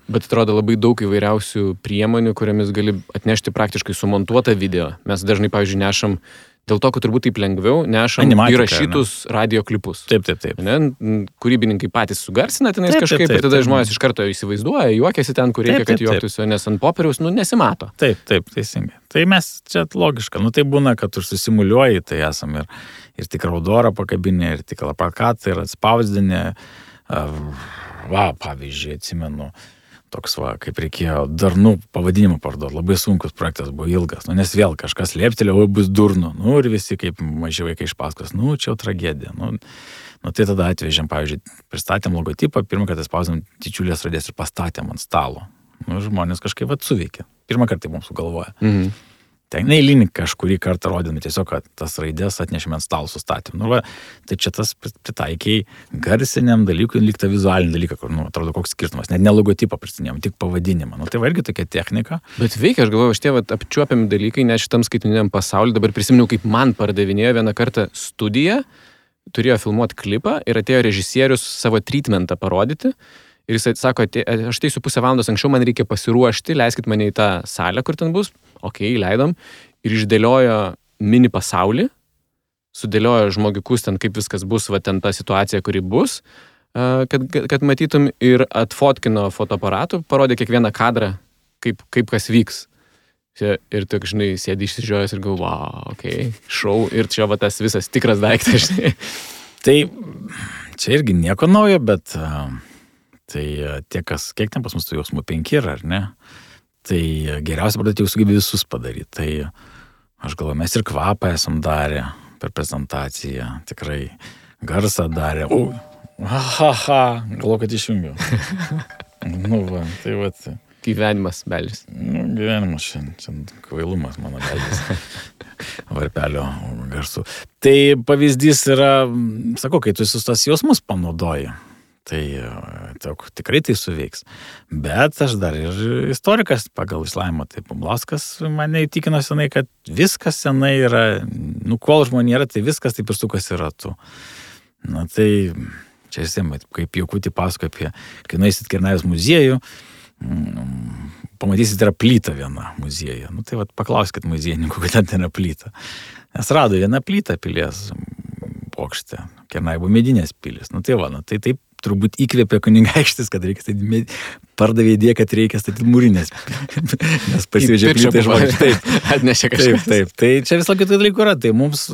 Bet atrodo labai daug įvairiausių priemonių, kuriamis gali atnešti praktiškai sumontuotą video. Mes dažnai, pavyzdžiui, nešam, dėl to, kad turbūt taip lengviau, nešam įrašytus radio klipus. Taip. Ne? Kūrybininkai patys sugarsina tenais kažkaip, ir tada žmonės iš karto įsivaizduoja, juokiasi ten, kur reikia, kad juoktųsi, nes ant popieriaus, nesimato. Taip, teisingai. Tai mes čia logiška. Nu, tai būna, kad tu susimuliuoji, tai esam ir tikrą raudorą pakabinę, ir tikrą plakatą, ir atspausdinę. Pavyzdžiui, atsimenu, toks kaip reikėjo darnų pavadinimą parduoti. Labai sunkus projektas buvo ilgas. Nu, nes vėl kažkas lėptelė, bus durnu. Nu, ir visi kaip maži vaikai iš paskos. Nu, čia jau tragedija. Nu, tai tada atvežėm, pavyzdžiui, pristatėm logotipą, pirmą kartą spausdėm didžiulės raidės ir pastatėm ant stalo. Nu, žmonės kažkaip suveikė. Pirmą kartą mums sugalvoja. Mhm. Ten neįlinį kažkurį kartą rodėme, tiesiog tas raidės atnešėme ant stalo sustatėm. Nu, tai čia tas pritaikiai garsiniam dalykui, lyg tą vizualinį dalyką, kur, atrodo, koks skirtumas. Net ne logotipą pristatinėjom, tik pavadinimą. Nu, tai irgi tokia technika. Bet veikia, aš galvoju, šitie apčiuopiami dalykai, net šitam skaitmeniniam pasauliu. Dabar prisiminiau, kaip man pardavinėjo vieną kartą studiją, turėjo filmuoti klipą ir atėjo režisierius savo treatmentą parodyti. Ir jis sako, aš ateisiu pusę valandos anksčiau, man reikia pasiruošti, leiskit mane į tą salę, kur ten bus. Okei, leidom. Ir išdėliojo mini pasaulį, sudėliojo žmogikus ten, kaip viskas bus, ten ta situacija, kuri bus, kad matytum, ir atfotkino fotoaparatu, parodė kiekvieną kadrą, kaip kas vyks. Ir tu, žinai, sėdi išsižiojęs ir galvo, šou, ir čia tas visas tikras daiktas, žinai. Tai čia irgi nieko naujo, bet tai kiek ten pas mus tų jausmų 5 yra, ar ne? Tai geriausia pradėti jau sugebė visus padaryti. Tai aš galvoju, mes ir kvapą esam darę per prezentaciją, tikrai garsą darę. Galvoju, kad išjungiau. Tai Gyvenimas beldžias. Gyvenimas šiandien kvailumas mano beldžias. Varpelio garsų. Tai pavyzdys yra, sakau, kai tu visus tas jausmus panaudoji. Tai tikrai tai suveiks. Bet aš dar ir istorikas pagal išsilavinimą. Tai Bumblauskas mane įtikino senai, kad viskas senai yra, kol žmonė yra, tai viskas taip ir sukasi ratu. Na tai čia visiems, kaip Jokutį pasako apie, kai nueisit Kernavės muziejų, pamatysit, yra plyta viena muziejuje. Tai paklauskit muziejininkų, kad ten yra plyta. Nes rado vieną plytą pilies bokšte. Kernavė buvo medinės pilis. Tai taip turbūt įkvėpė kunigaikštis, kad reikia statyti, pardavė idėją, kad reikia statyti mūrinės. Nes pasivežė plytą iš vokiečių. Taip, atnešė kažkas. Taip. Tai čia vis kitų dalykų yra. Tai mums,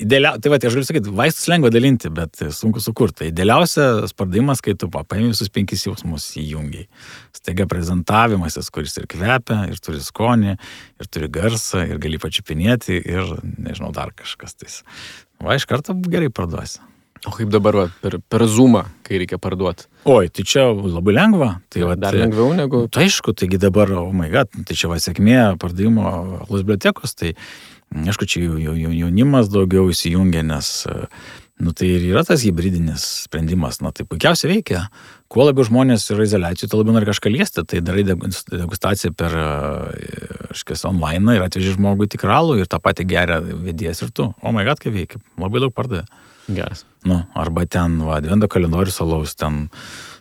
idealiausia, tai aš galiu sakyti, vaistus lengva dalinti, bet sunku sukurti. Tai idealiausias pardavimas, kai tu paimi visus 5 jausmus įjungiai. Staiga prezentavimasis, kuris ir kvepia, ir turi skonį, ir turi garsą, ir gali pačiupinėti, ir nežinau, dar kažkas. Tai iš karto gerai parduosi. O kaip dabar per Zoomą, kai reikia parduoti? Oi, tai čia labai lengva. Tai dar lengviau negu... Tai aišku, taigi dabar, tai čia sėkmė pardavimo alus bibliotekos, tai aišku, čia jaunimas daugiau įsijungia, nes tai ir yra tas hybridinis sprendimas. Tai puikiausiai veikia. Kuo labiau žmonės yra izoliacijų, tuo labiau nori kažką liesti. Tai darai degustaciją per online ir atveži žmogui tikralų ir tą patį geria vedėjas ir tu. O my god, kaip veikia. Labai daug pardavė. Geras. Arba ten, advento kalendorius alaus, ten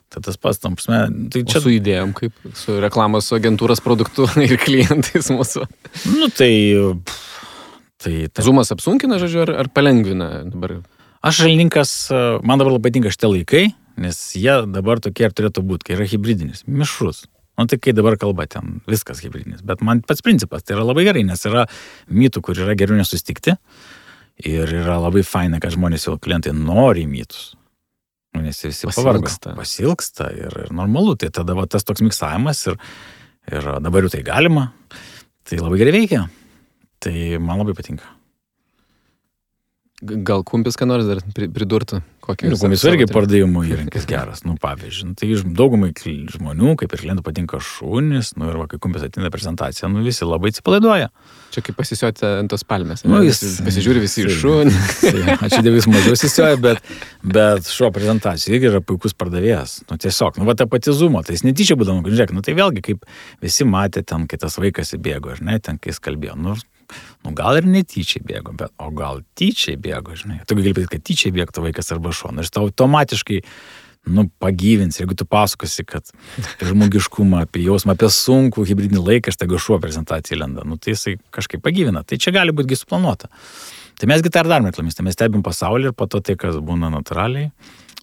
Tai tas pats, tam prasme, tai čia su idėjom, kaip su reklamos agentūros produktu ir klientais mūsų. Nu, tai Zoomas apsunkina, žodžiu, ar palengvina dabar? Aš šalininkas, man dabar labai patinka šitie laikai, nes jie dabar tokie ir turėtų būti, kai yra hybridinis, mišrus. Nu, tai kai dabar kalba ten, viskas hybridinis. Bet man pats principas, tai yra labai gerai, nes yra mitų, kur yra geriau nesustikti ir yra labai faina, kad žmonės jau klientai nori mitus. Nu, nes visi pasilgsta ir normalu. Tai tada va, tas toks miksavimas ir dabar jau tai galima. Tai labai gerai veikia. Tai man labai patinka. Gal kumpis, ką nors dar pridurtų? Kumpis irgi pardavimo įrankis geras. Nu, pavyzdžiui, tai daugumai žmonių, kaip ir klientų, patinka šunys, nu ir va, kai kumpis ateina prezentaciją, nu visi labai atsipalaiduoja. Čia kaip pasisioti ant tos palmės. Nu, jis pasižiūri visi į šunį. Ačiū Dievui, mažiau sisioja, bet šuo prezentacija irgi yra puikus pardavėjas. Nu, tiesiog, nu, va, ta pati Zoomo, tai jis netyčia būdavo, žiūrėk, nu, tai vėlgi, kaip visi matė ten, kai tas vaikas įbėgo, ar ne, ten, kai jis kalbėjo, nu, gal ir netyčiai bėgo, o gal tyčiai bėgo, žinai. Tu gali pasakyti, kad tyčiai bėgtų vaikas arba šuo. Ir tau automatiškai, pagyvins, jeigu tu pasakosi, kad žmogiškumą, apie jausmą, apie sunkų hibridinį laiką, štai šuo prezentacijai lenda. Nu, tai jisai kažkaip pagyvina. Tai čia gali būti suplanuota. Tai mesgi tą ir darome reklamistai. Mes stebim pasaulį ir po to tai, kas būna natūraliai,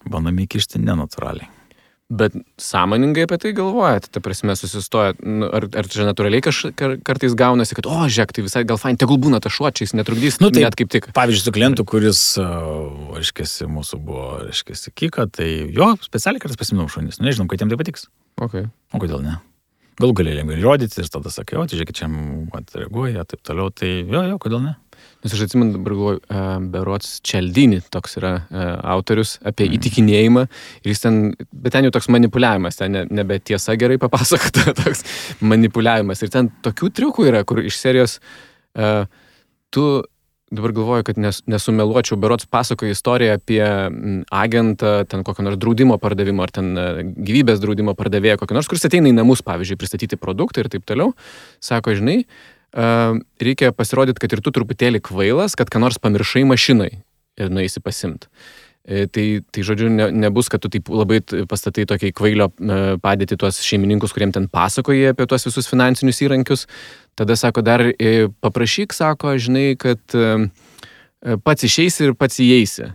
bandome įkišti nenatūraliai. Bet sąmoningai apie tai galvojate, ta prasme susistojat, ar čia natūraliai kartais gaunasi, kad, žiūrėk, tai visai gal fain, tegul būna ta šuo, čia jis netrukdys, tai, net kaip tik. Pavyzdžiui, su klientu, kuris, reiškiasi, mūsų buvo, reiškiasi, Kika, tai jo, specialiai kartais pasiminau šunis, nežinom, kad jam tai patiks. Okay. O kodėl ne? Galų galėjom ir rodyti ir tada sakai, tai žiūrėk, čia reaguoja, taip toliau, tai jo, kodėl ne? Nes aš atsimenu, dabar galvoju, berods Cialdini toks yra autorius apie įtikinėjimą ir jis ten, bet ten jau toks manipuliavimas, ten nebe tiesa gerai papasakota, toks manipuliavimas ir ten tokių triukų yra, kur iš serijos tu, dabar galvoju, kad nesumeluočiau, berods pasakoja istoriją apie agentą, ten kokio nors draudimo pardavimo ar ten gyvybės draudimo pardavėjo kokio nors, kuris ateina į namus, pavyzdžiui, pristatyti produktą ir taip toliau, sako, žinai, reikia pasirodyti, kad ir tu truputėlį kvailas, kad ką nors pamiršai mašinai ir nueisi pasimt. Tai žodžiu, nebus, kad tu taip labai pastatai tokiai kvailio padėti tuos šeimininkus, kuriem ten pasakoja apie tuos visus finansinius įrankius. Tada sako, dar paprašyk, sako, žinai, kad pats išeisi ir pats įeisi.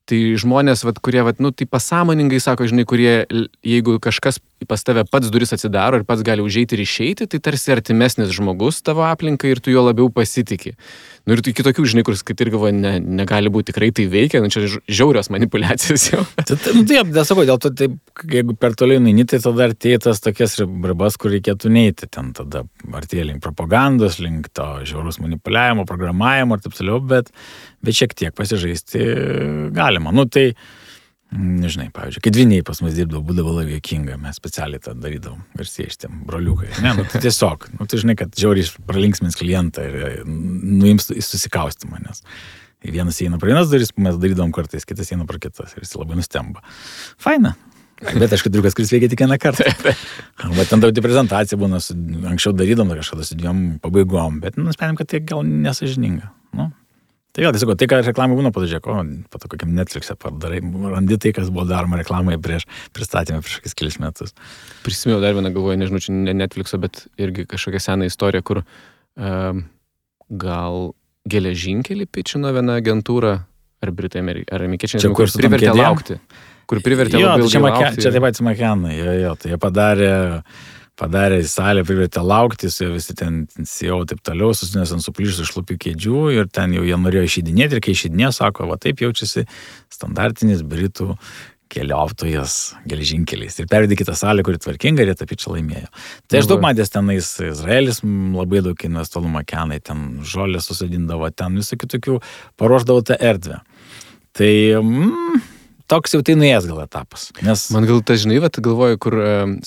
Tai žmonės, kurie, tai pasąmoningai sako, žinai, kurie, jeigu kažkas pas tave pats duris atsidaro ir pats gali užeiti ir išeiti, tai tarsi artimesnis žmogus tavo aplinkai ir tu juo labiau pasitiki. Nu ir tu kitokių, žinai, kuris, kad ir galvoja, negali būti, tikrai tai veikia, čia žiaurios manipulacijos jau. Taip, nesakau, dėl to, taip, jeigu per toliau neini, tai tada artėja tas tokias ribas, kur reikėtų neiti. Ten tada artėja link propagandos, link to žiaurus manipuliavimo, programavimo ir taip toliau, bet šiek tiek pasižaisti galima. Nu tai, nežinai, pavyzdžiui, kai dviniai pas mus dirbdavo, būdavo labai juokinga, mes specialiai tą darydavom, garsieji šitiem broliukai. Ne, tai tiesiog, tai žinai, kad žiauriai pralinksmins klientą ir nuims susikaustymą, nes vienas eina pro vienas duris, mes darydavom kartais, kitas eina pro kitas ir visi labai nustemba. Faina. Bet aišku, triukas, kuris veikia tik vieną kartą. Bet ten daugiau prezentacija būna, anksčiau darydavom kažkada su 2 pabaigom, bet nusprendėm, kad tai gal nesažininga. Tai vėl, tiesiog, tai, ką reklamai būna, pažiūrėk, po to kokiam Netflix'e padarai, randi tai, kas buvo daroma reklamai prieš pristatymą prieš kokius kelis metus. Prisimėjau dar vieną, galvoju, nežinau, čia ne Netflix'o, bet irgi kažkokia sena istorija, kur gal geležinkelį pičino viena agentūra, ar Britai, ar amerikiečiai, kur privertė laukti. Kur privertė labai ilgai laukti. Čia taip pat Makenai, tai jie padarė į salę, privertė laukti, su visi ten CEO taip toliau, susinės ant suplyšusių šlupių kėdžių ir ten jau jie norėjo išeidinėti ir kai išeidinėjo, sako, va taip jaučiasi standartinis Britų keliautojas geležinkeliais. Ir pervedė kitą salę, kuri tvarkinga ir jie tą pičą laimėjo. Tai aš daug matęs tenais, Izraelis labai daug investuolų Makenai, ten žolę susidindavo, ten visokių tokių paruošdavo tą erdvę. Tai toks jau tai nuėjęs gal etapas. Nes... Man gal ta, žinai, galvoju, kur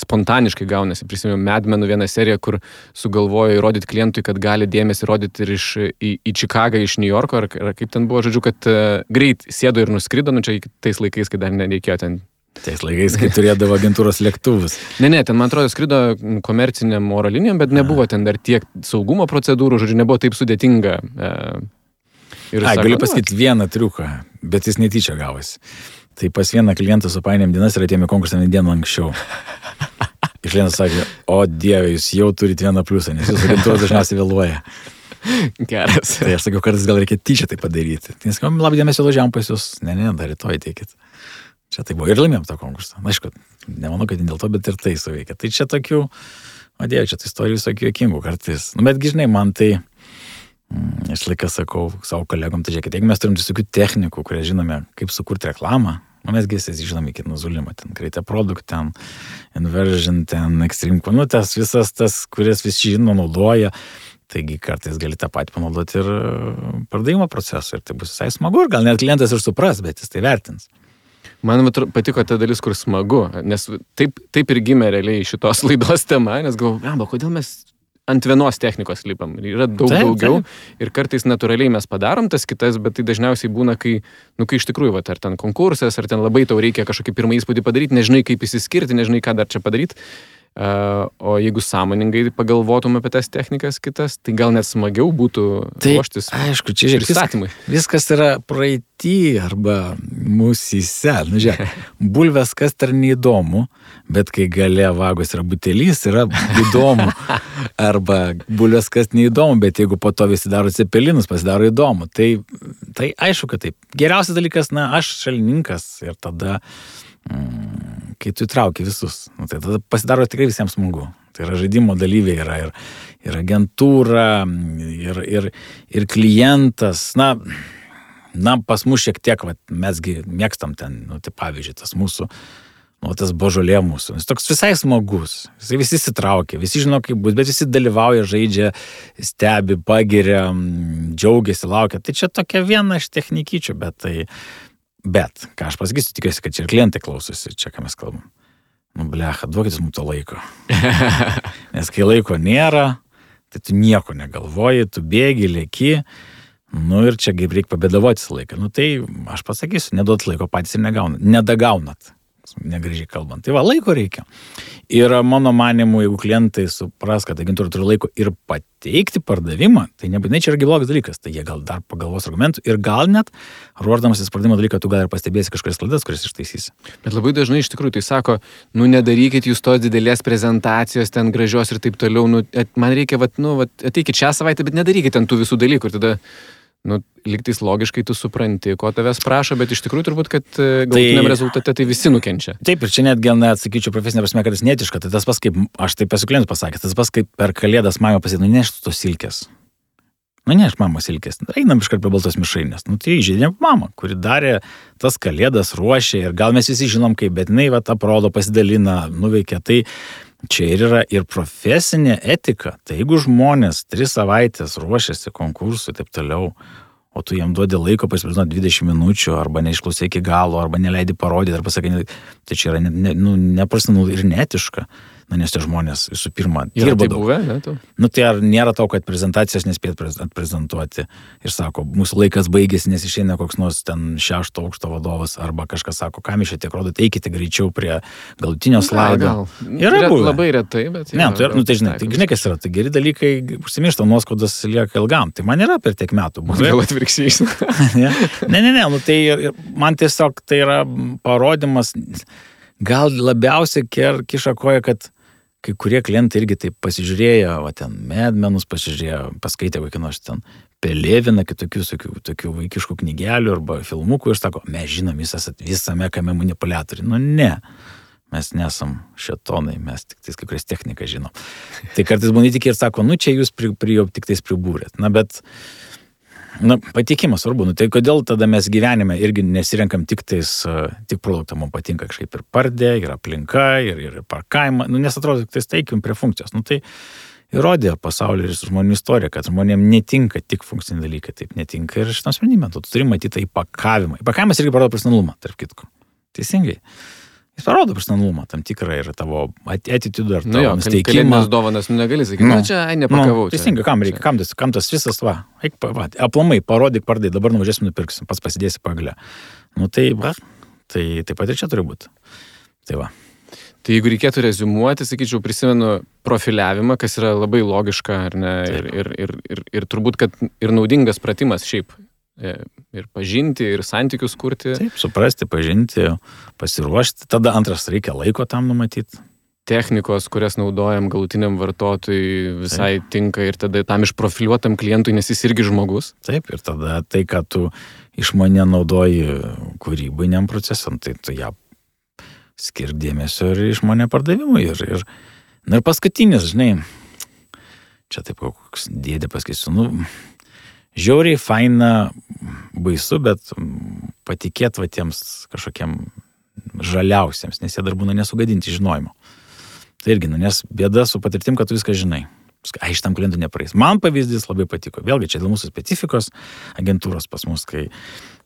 spontaniškai gaunasi. Prisimenu Mad Menų vieną seriją, kur sugalvojo įrodyti klientui, kad gali dėmesį rodyti ir į Čikagą, iš New Yorko, ar kaip ten buvo, žodžiu, kad greit sėdo ir nuskrido, čia tais laikais, kai dar nereikėjo ten. Tais laikais, kai turėdavo agentūros lėktuvus. Ne, ten, man atrodo, skrido komerciniam oro linijom, bet nebuvo ten dar tiek saugumo procedūrų, žodžiu, nebuvo taip sudėtinga. Galiu pasakyti vieną triuką, bet jis netyčia gavosi. Tai pas vieną klientą supainėm dienas ir atėjome konkursą dieną anksčiau. Ir klientas sakė, o Dieve, jūs jau turite vieną pliusą, nes jūsų agentūra dažniausiai vėluoja. Geras. Tai aš sakiau, kartais gal reikia tyčia tai padaryti. Tai sakau, labai dėmesio važiavam pas jūs. Ne, dar rytoj teikit. Čia tai buvo ir laimėjom tą konkursą. Na, aišku, nemanau, kad dėl to, bet ir tai suveikia. Tai čia tokių, o Dieve, čia tai istorijų visokių juokingų kartais. Nu, bet žinai, man tai, aš laiką sakau savo kolegom, tai žiūrėkit, jeigu mes turim visokių technikų, kurie žinome, kaip sukurti reklamą, mes gi žinome iki nuzulimo, ten Create a Product, ten Inversion, ten Extreme, nu tas visas tas, kuris visi žino, naudoja, taigi kartais gali tą patį panaudoti ir pardavimo procesui ir tai bus visai smagu ir gal net klientas ir supras, bet jis tai vertins. Man patiko ta dalis, kur smagu, nes taip ir gimė realiai šitos laidos tema, nes galvoju, kodėl mes ant vienos technikos lipam. Yra daug daugiau ir kartais natūraliai mes padarom tas kitas, bet tai dažniausiai būna, kai iš tikrųjų, ar ten konkursas, ar ten labai tau reikia kažkokį pirmą įspūdį padaryti, nežinai kaip įsiskirti, nežinai ką dar čia padaryti. O jeigu sąmoningai pagalvotum apie tas technikas kitas, tai gal net smagiau būtų ruoštis. Aišku, čia žiūrėk, viskas yra praeitį arba mūsyse. Nu, žiūrėk, bulvės kas dar neįdomu, bet kai gale vagos yra butelys, yra įdomu. Arba bulvės kas neįdomu, bet jeigu po to visi daro cepelinus, pasidaro įdomu. Tai aišku, kad taip. Geriausias dalykas, aš šalininkas ir tada kai tu įtrauki visus, tai tada pasidaro tikrai visiems smagu. Tai yra žaidimo dalyviai, yra ir agentūra, ir klientas. Na, pas mus šiek tiek, mesgi mėgstam ten, tai pavyzdžiui, tas mūsų, tas božolė mūsų. Jis toks visai smagus. Jis visi įsitraukia, visi žino, kaip bus, bet visi dalyvauja, žaidžia, stebi, pagiria, džiaugiasi, laukia. Tai čia tokia viena iš technikyčių, Bet, ką aš pasakysiu, tikiuosi, kad čia ir klientai klausosi, čia ką mes kalbam. Blecha, duokitės mums to laiko. Nes kai laiko nėra, tai tu nieko negalvoji, tu bėgi, lėki, ir čia kaip reikia pabėdavoti laiką. Tai aš pasakysiu, neduot laiko patys ir nedagaunat, negražiai kalbant. Tai laiko reikia. Ir mano manimu, jeigu klientai supras, kad agentūra turi laiko ir pateikti pardavimą, tai nebūtinai čia yra blogas dalykas, tai jie gal dar pagalvos argumentų ir gal net, ruošdamasis pardavimo dalyką, tu gal ir pastebėsi kažkokias klaidas, kuris ištaisysi. Bet labai dažnai iš tikrųjų tai sako, nedarykit jūs tos didelės prezentacijos, ten gražios ir taip toliau, man reikia, ateikit šią savaitę, bet nedarykit ten tų visų dalykų ir tada lygtais logiškai tu supranti, ko tavęs prašo, bet iš tikrųjų turbūt, kad galutiniam rezultate tai visi nukenčia. Taip, ir čia netgi, sakyčiau, profesinė prasme, kad jis netiška, tai tas pas, kaip aš taip esu klientų pasakęs, tas pas, kaip per kalėdas mama pasakė, neštų tos silkės. Neš mama silkės, einam iškart prie baltos mišrainės. Tai žaidėm mama, kuri darė tas kalėdas, ruošė ir gal mes visi žinom kaip, bet jinai aprodo, pasidalina, nuveikia. Tai čia ir yra ir profesinė etika. Tai jeigu žmonės 3 savaitės ruošiasi konkursui ir taip toliau, o tu jam duodi laiko pasiprizinoti 20 minučių, arba neišklausai iki galo, arba neleidi parodyti, arba sakai, tai čia yra neprofesionalu ir neetiška. Nes tie žmonės visų pirma dirba daug. Buvę, ne, tai ar nėra to, kad prezentacijas nespėt atprezentuoti ir sako, mūsų laikas baigėsi, nes išeina koks nors ten 6 aukšto vadovas, arba kažkas sako, kam iš čia tiek rodot, eikite greičiau prie galutinio slaido. Yra labai retai, bet... Ne, tai žinai, kas yra, tai geri dalykai užsimiršta, nuoskaudas lieka ilgam. Tai man yra per tiek metų. Gal atvirkščiai. Ne, tai man tiesiog tai yra parodimas, gal labiausiai kiša koja, kad kai kurie klientai irgi taip pasižiūrėjo, ten medmenus pasižiūrėjo, paskaitė kokį nors ten Peleviną, tokių vaikiškų knygelių arba filmukų ir sako, mes žinom, jūs esat visame kame manipuliatoriai. Ne, mes nesam šetonai, mes tik tais kai kurias techniką žinom. Tai kartais būna tik ir sako, čia jūs tik tais pribūrėt. Bet patikimas svarbu. Tai kodėl tada mes gyvenime irgi nesirenkam tik produktą, mums patinka kažkaip ir pardė, ir aplinka, ir parkavimą, nes atrodo, tik taikim prie funkcijos. Tai įrodė pasaulio ir žmonių istorija, kad žmonėms netinka tik funkciniai dalykai, taip netinka ir šitam sprendimui. Tu turi matyti įpakavimą. Įpakavimas irgi parodo profesionalumą, tarp kitko. Teisingai. Jis parodo profesionalumą, tam tikrą ir tavo attitude ar tavo nusteikimą. Kalėdinės dovanas negali sakyti, čia nepakavau. Teisingai, kam reikia, kam tas visas, aplamai, parodyk, pardai, dabar nuvažiuosim, nupirksim, pats pasidėsi pagalę. Tai taip pat ir čia turi būti. Tai jeigu reikėtų reziumuoti, sakyčiau, prisimenu profiliavimą, kas yra labai logiška, ar ne, ir turbūt, kad ir naudingas pratimas šiaip ir pažinti, ir santykius kurti. Taip, suprasti, pažinti, pasiruošti. Tada antras reikia laiko tam numatyti. Technikos, kurias naudojam galutiniam vartotojui, visai tinka ir tada tam išprofiliuotam klientui, nes jis irgi žmogus. Taip, ir tada tai, ką tu išmanė naudoji kūrybiniam procesam, tai tu ją skir dėmesio ir išmanė pardavimui. Ir paskutinis, žinai, čia taip koks dėdė pasakysiu, žiauriai faina, baisu, bet patikėt va tiems kažkokiem žaliausiems, nes jie dar būna nesugadinti žinojimo. Tai irgi, nes bėda su patirtim, kad tu viską žinai. Šitam klientui nepraeis. Man pavyzdys labai patiko. Vėlgi, čia dėl mūsų specifikos agentūros pas mus, kai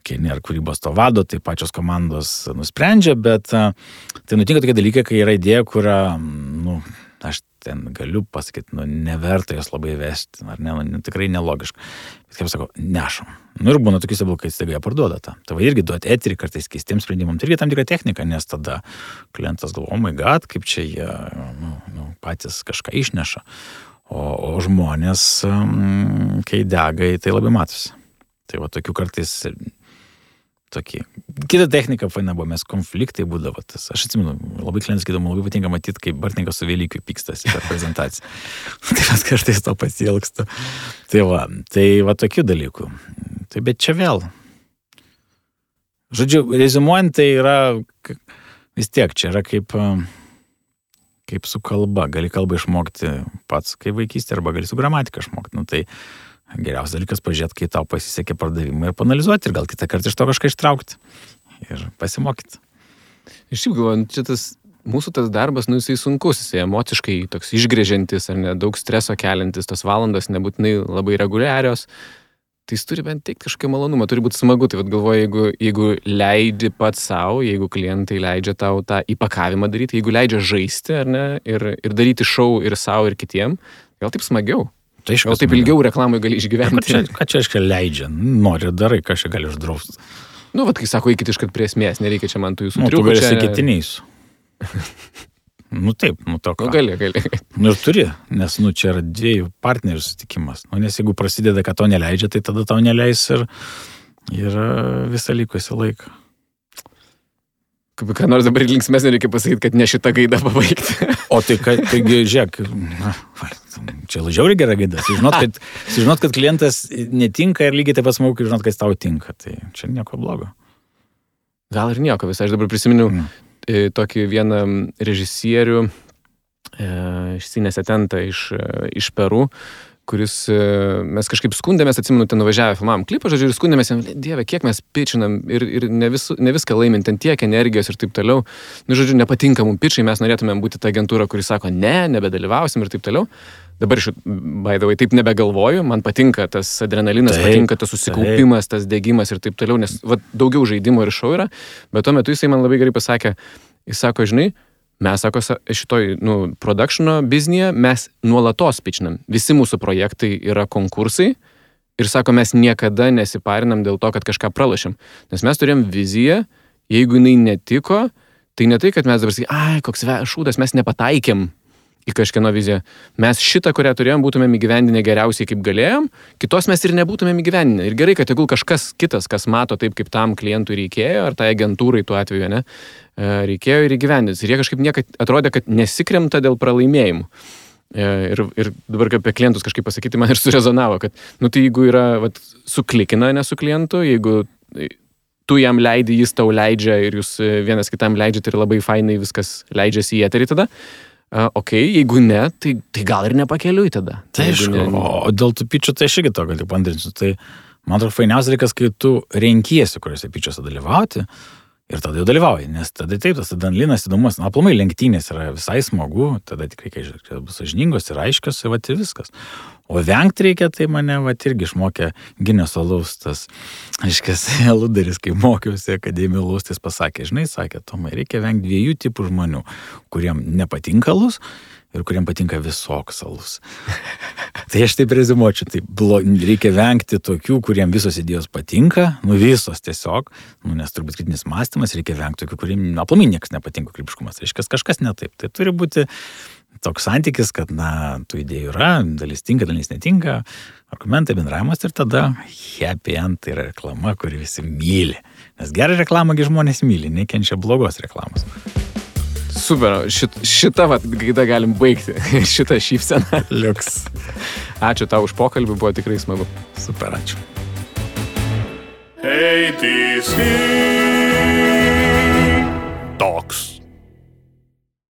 nėra kūrybos to vado, tai pačios komandos nusprendžia, bet tai nutinka tokie dalykai, kai yra idėja, kurią, aš ten galiu pasakyti, neverta jos labai vesti, ar ne, tikrai nelogiška. Bet kaip sako, nešam. Ir būna tokiuose blokai, staiga jie parduoda tą. Tai irgi duoti eterį kartais keistiems sprendimams. Tai irgi tam tikra technika, nes tada klientas galvo, oh my god, kaip čia jie patys kažką išneša. O žmonės, kai dega, tai labai matosi. Tai va tokių kartais tokie. Kita technika faina buvo, mes konfliktai būdavo tas. Aš atsimenu, labai klientas sakydavo, labai patinka matyti, kaip Bartninkas su Velykiu pykstasi per prezentaciją. Tai mes kartais to pasiilgstu. Tai va tokių dalykų. Tai bet čia vėl. Žodžiu, reziumuojant, tai yra vis tiek, čia yra kaip su kalba. Gali kalbą išmokti pats kaip vaikystė, arba gali su gramatika išmokti. Tai geriausias dalykas pažiūrėti, kai tau pasisekė pardavimą ir panalizuoti ir gal kitą kartą iš to kažką ištraukti ir pasimokyti. Iš šiaip galvoju, čia mūsų tas darbas, jisai sunkus, jisai emociškai toks išgrėžiantis ar ne, daug streso keliantis, tos valandos nebūtinai labai reguliarios, tai jis turi bent teikti kažkokį malonumą, turi būti smagu, tai galvoju, jeigu leidi pats savo, jeigu klientai leidžia tau tą įpakavimą daryti, jeigu leidžia žaisti ar ne, ir daryti šou ir savo ir kitiem, gal taip smagiau. Tai gal taip ilgiau reklamai gali išgyventi. Ką čia aiškiai leidžia? Nori darai, ką čia gali uždrausti. Kai sako, eikit iškart prie esmės, nereikia čia man tų jūsų triukų. Tu gali sakyti neįsiu. Taip, to ką. Gali. Ir turi, nes čia yra dviejų partnerių susitikimas. Nes jeigu prasideda, kad to neleidžia, tai tada tau neleis ir visą likusį laiką. Ką nors dabar linksmesnė reikia pasakyti, kad ne šitą gaidą pabaigti. O taigi, žiūrėk, čia žiauriai gera gaida. Sužinot, kad klientas netinka ir lygiai taip pat smagu, kai žinot, kad jis tau tinka. Tai čia nieko blogo. Gal ir nieko visai. Aš dabar prisiminiau tokį vieną režisierių iš Sinesetentą iš Peru, kuris mes kažkaip skundėmės, atsimenu, ten nuvažiavę filmavom klipą, žodžiu, ir skundėmės, dieve, kiek mes pičinam ir ne viską laimint, ten tiek energijos ir taip toliau. Žodžiu, nepatinka mums pičiai, mes norėtumėm būti ta agentūra, kuris sako, nebedalyvausim ir taip toliau. Dabar by the way, taip nebegalvoju, man patinka tas adrenalinas, patinka tas susikaupimas, tas degimas ir taip toliau, nes daugiau žaidimo ir šou yra, bet tuo metu jisai man labai gerai pasakė, jis sako, žinai, mes, sako, šitoj, productiono biznėje mes nuolatos pičinam. Visi mūsų projektai yra konkursai ir, sako, mes niekada nesiparinam dėl to, kad kažką pralašėm. Nes mes turėjom viziją, jeigu jinai netiko, tai ne tai, kad mes dabar sakai, koks šūdas, mes nepataikėm į kažkieno viziją. Mes šitą, kurią turėjom, būtumėm įgyvendinę geriausiai, kaip galėjom, kitos mes ir nebūtumėm įgyvendinę. Ir gerai, kad tegul kažkas kitas, kas mato taip, kaip tam klientui reikėjo, ar tai agentūrai tuo atveju, ne, reikėjo ir įgyvendins. Ir jie kažkaip niekad atrodė, kad nesikremta dėl pralaimėjimų. Ir dabar apie klientus kažkaip pasakyti, man ir surezonavo, kad, tai jeigu yra, suklikina, ne su klientu, jeigu tu jam leidi, jis tau leidžia ir jūs vienas kitam leidžiate ir labai fainai viskas leidžiasi į eterį tada, jeigu ne, tai gal ir nepakeliui tada. Tai o dėl tų pičių, tai aš irgi to galiu pandrinsiu. Tai man atrodo fainiausias reikas, kai tu renkiesi, kuriuose pičiuose dalyvauti ir tada jau dalyvauji, nes tada taip, tas adrenalinas įdomus, aplamai lenktynės yra visai smagu, tada tikrai, kai bus sąžiningos ir aiškios ir viskas. O vengti reikia, tai mane irgi išmokė Gineso alaus, tas, aiškias, ludaris, kai mokiausi akademijų alaus, tai jis pasakė, žinai, sakė, Tomai, reikia vengti 2 tipų žmonių, kuriem nepatinka alus ir kuriem patinka visoks alus. Tai aš taip rezimuočiau, tai reikia vengti tokių, kuriem visos idėjos patinka, visos tiesiog, nes turbūt kritinis mąstymas, reikia vengti tokių, kuriem aplamai niekas nepatinka, kūrybiškumas, reiškia, kažkas ne taip. Tai turi būti toks santykis, kad, tų idėjų yra, dalis tinka, dalis netinka, argumentai, bendravimas ir tada happy end tai yra reklama, kuri visi myli. Nes gerą reklamą žmonės myli, nekenčia blogos reklamos. Super, šitą gaida galim baigti, šitą šypseną. Liuks. Ačiū tau už pokalbį, buvo tikrai smagu. Super, ačiū. Hey, this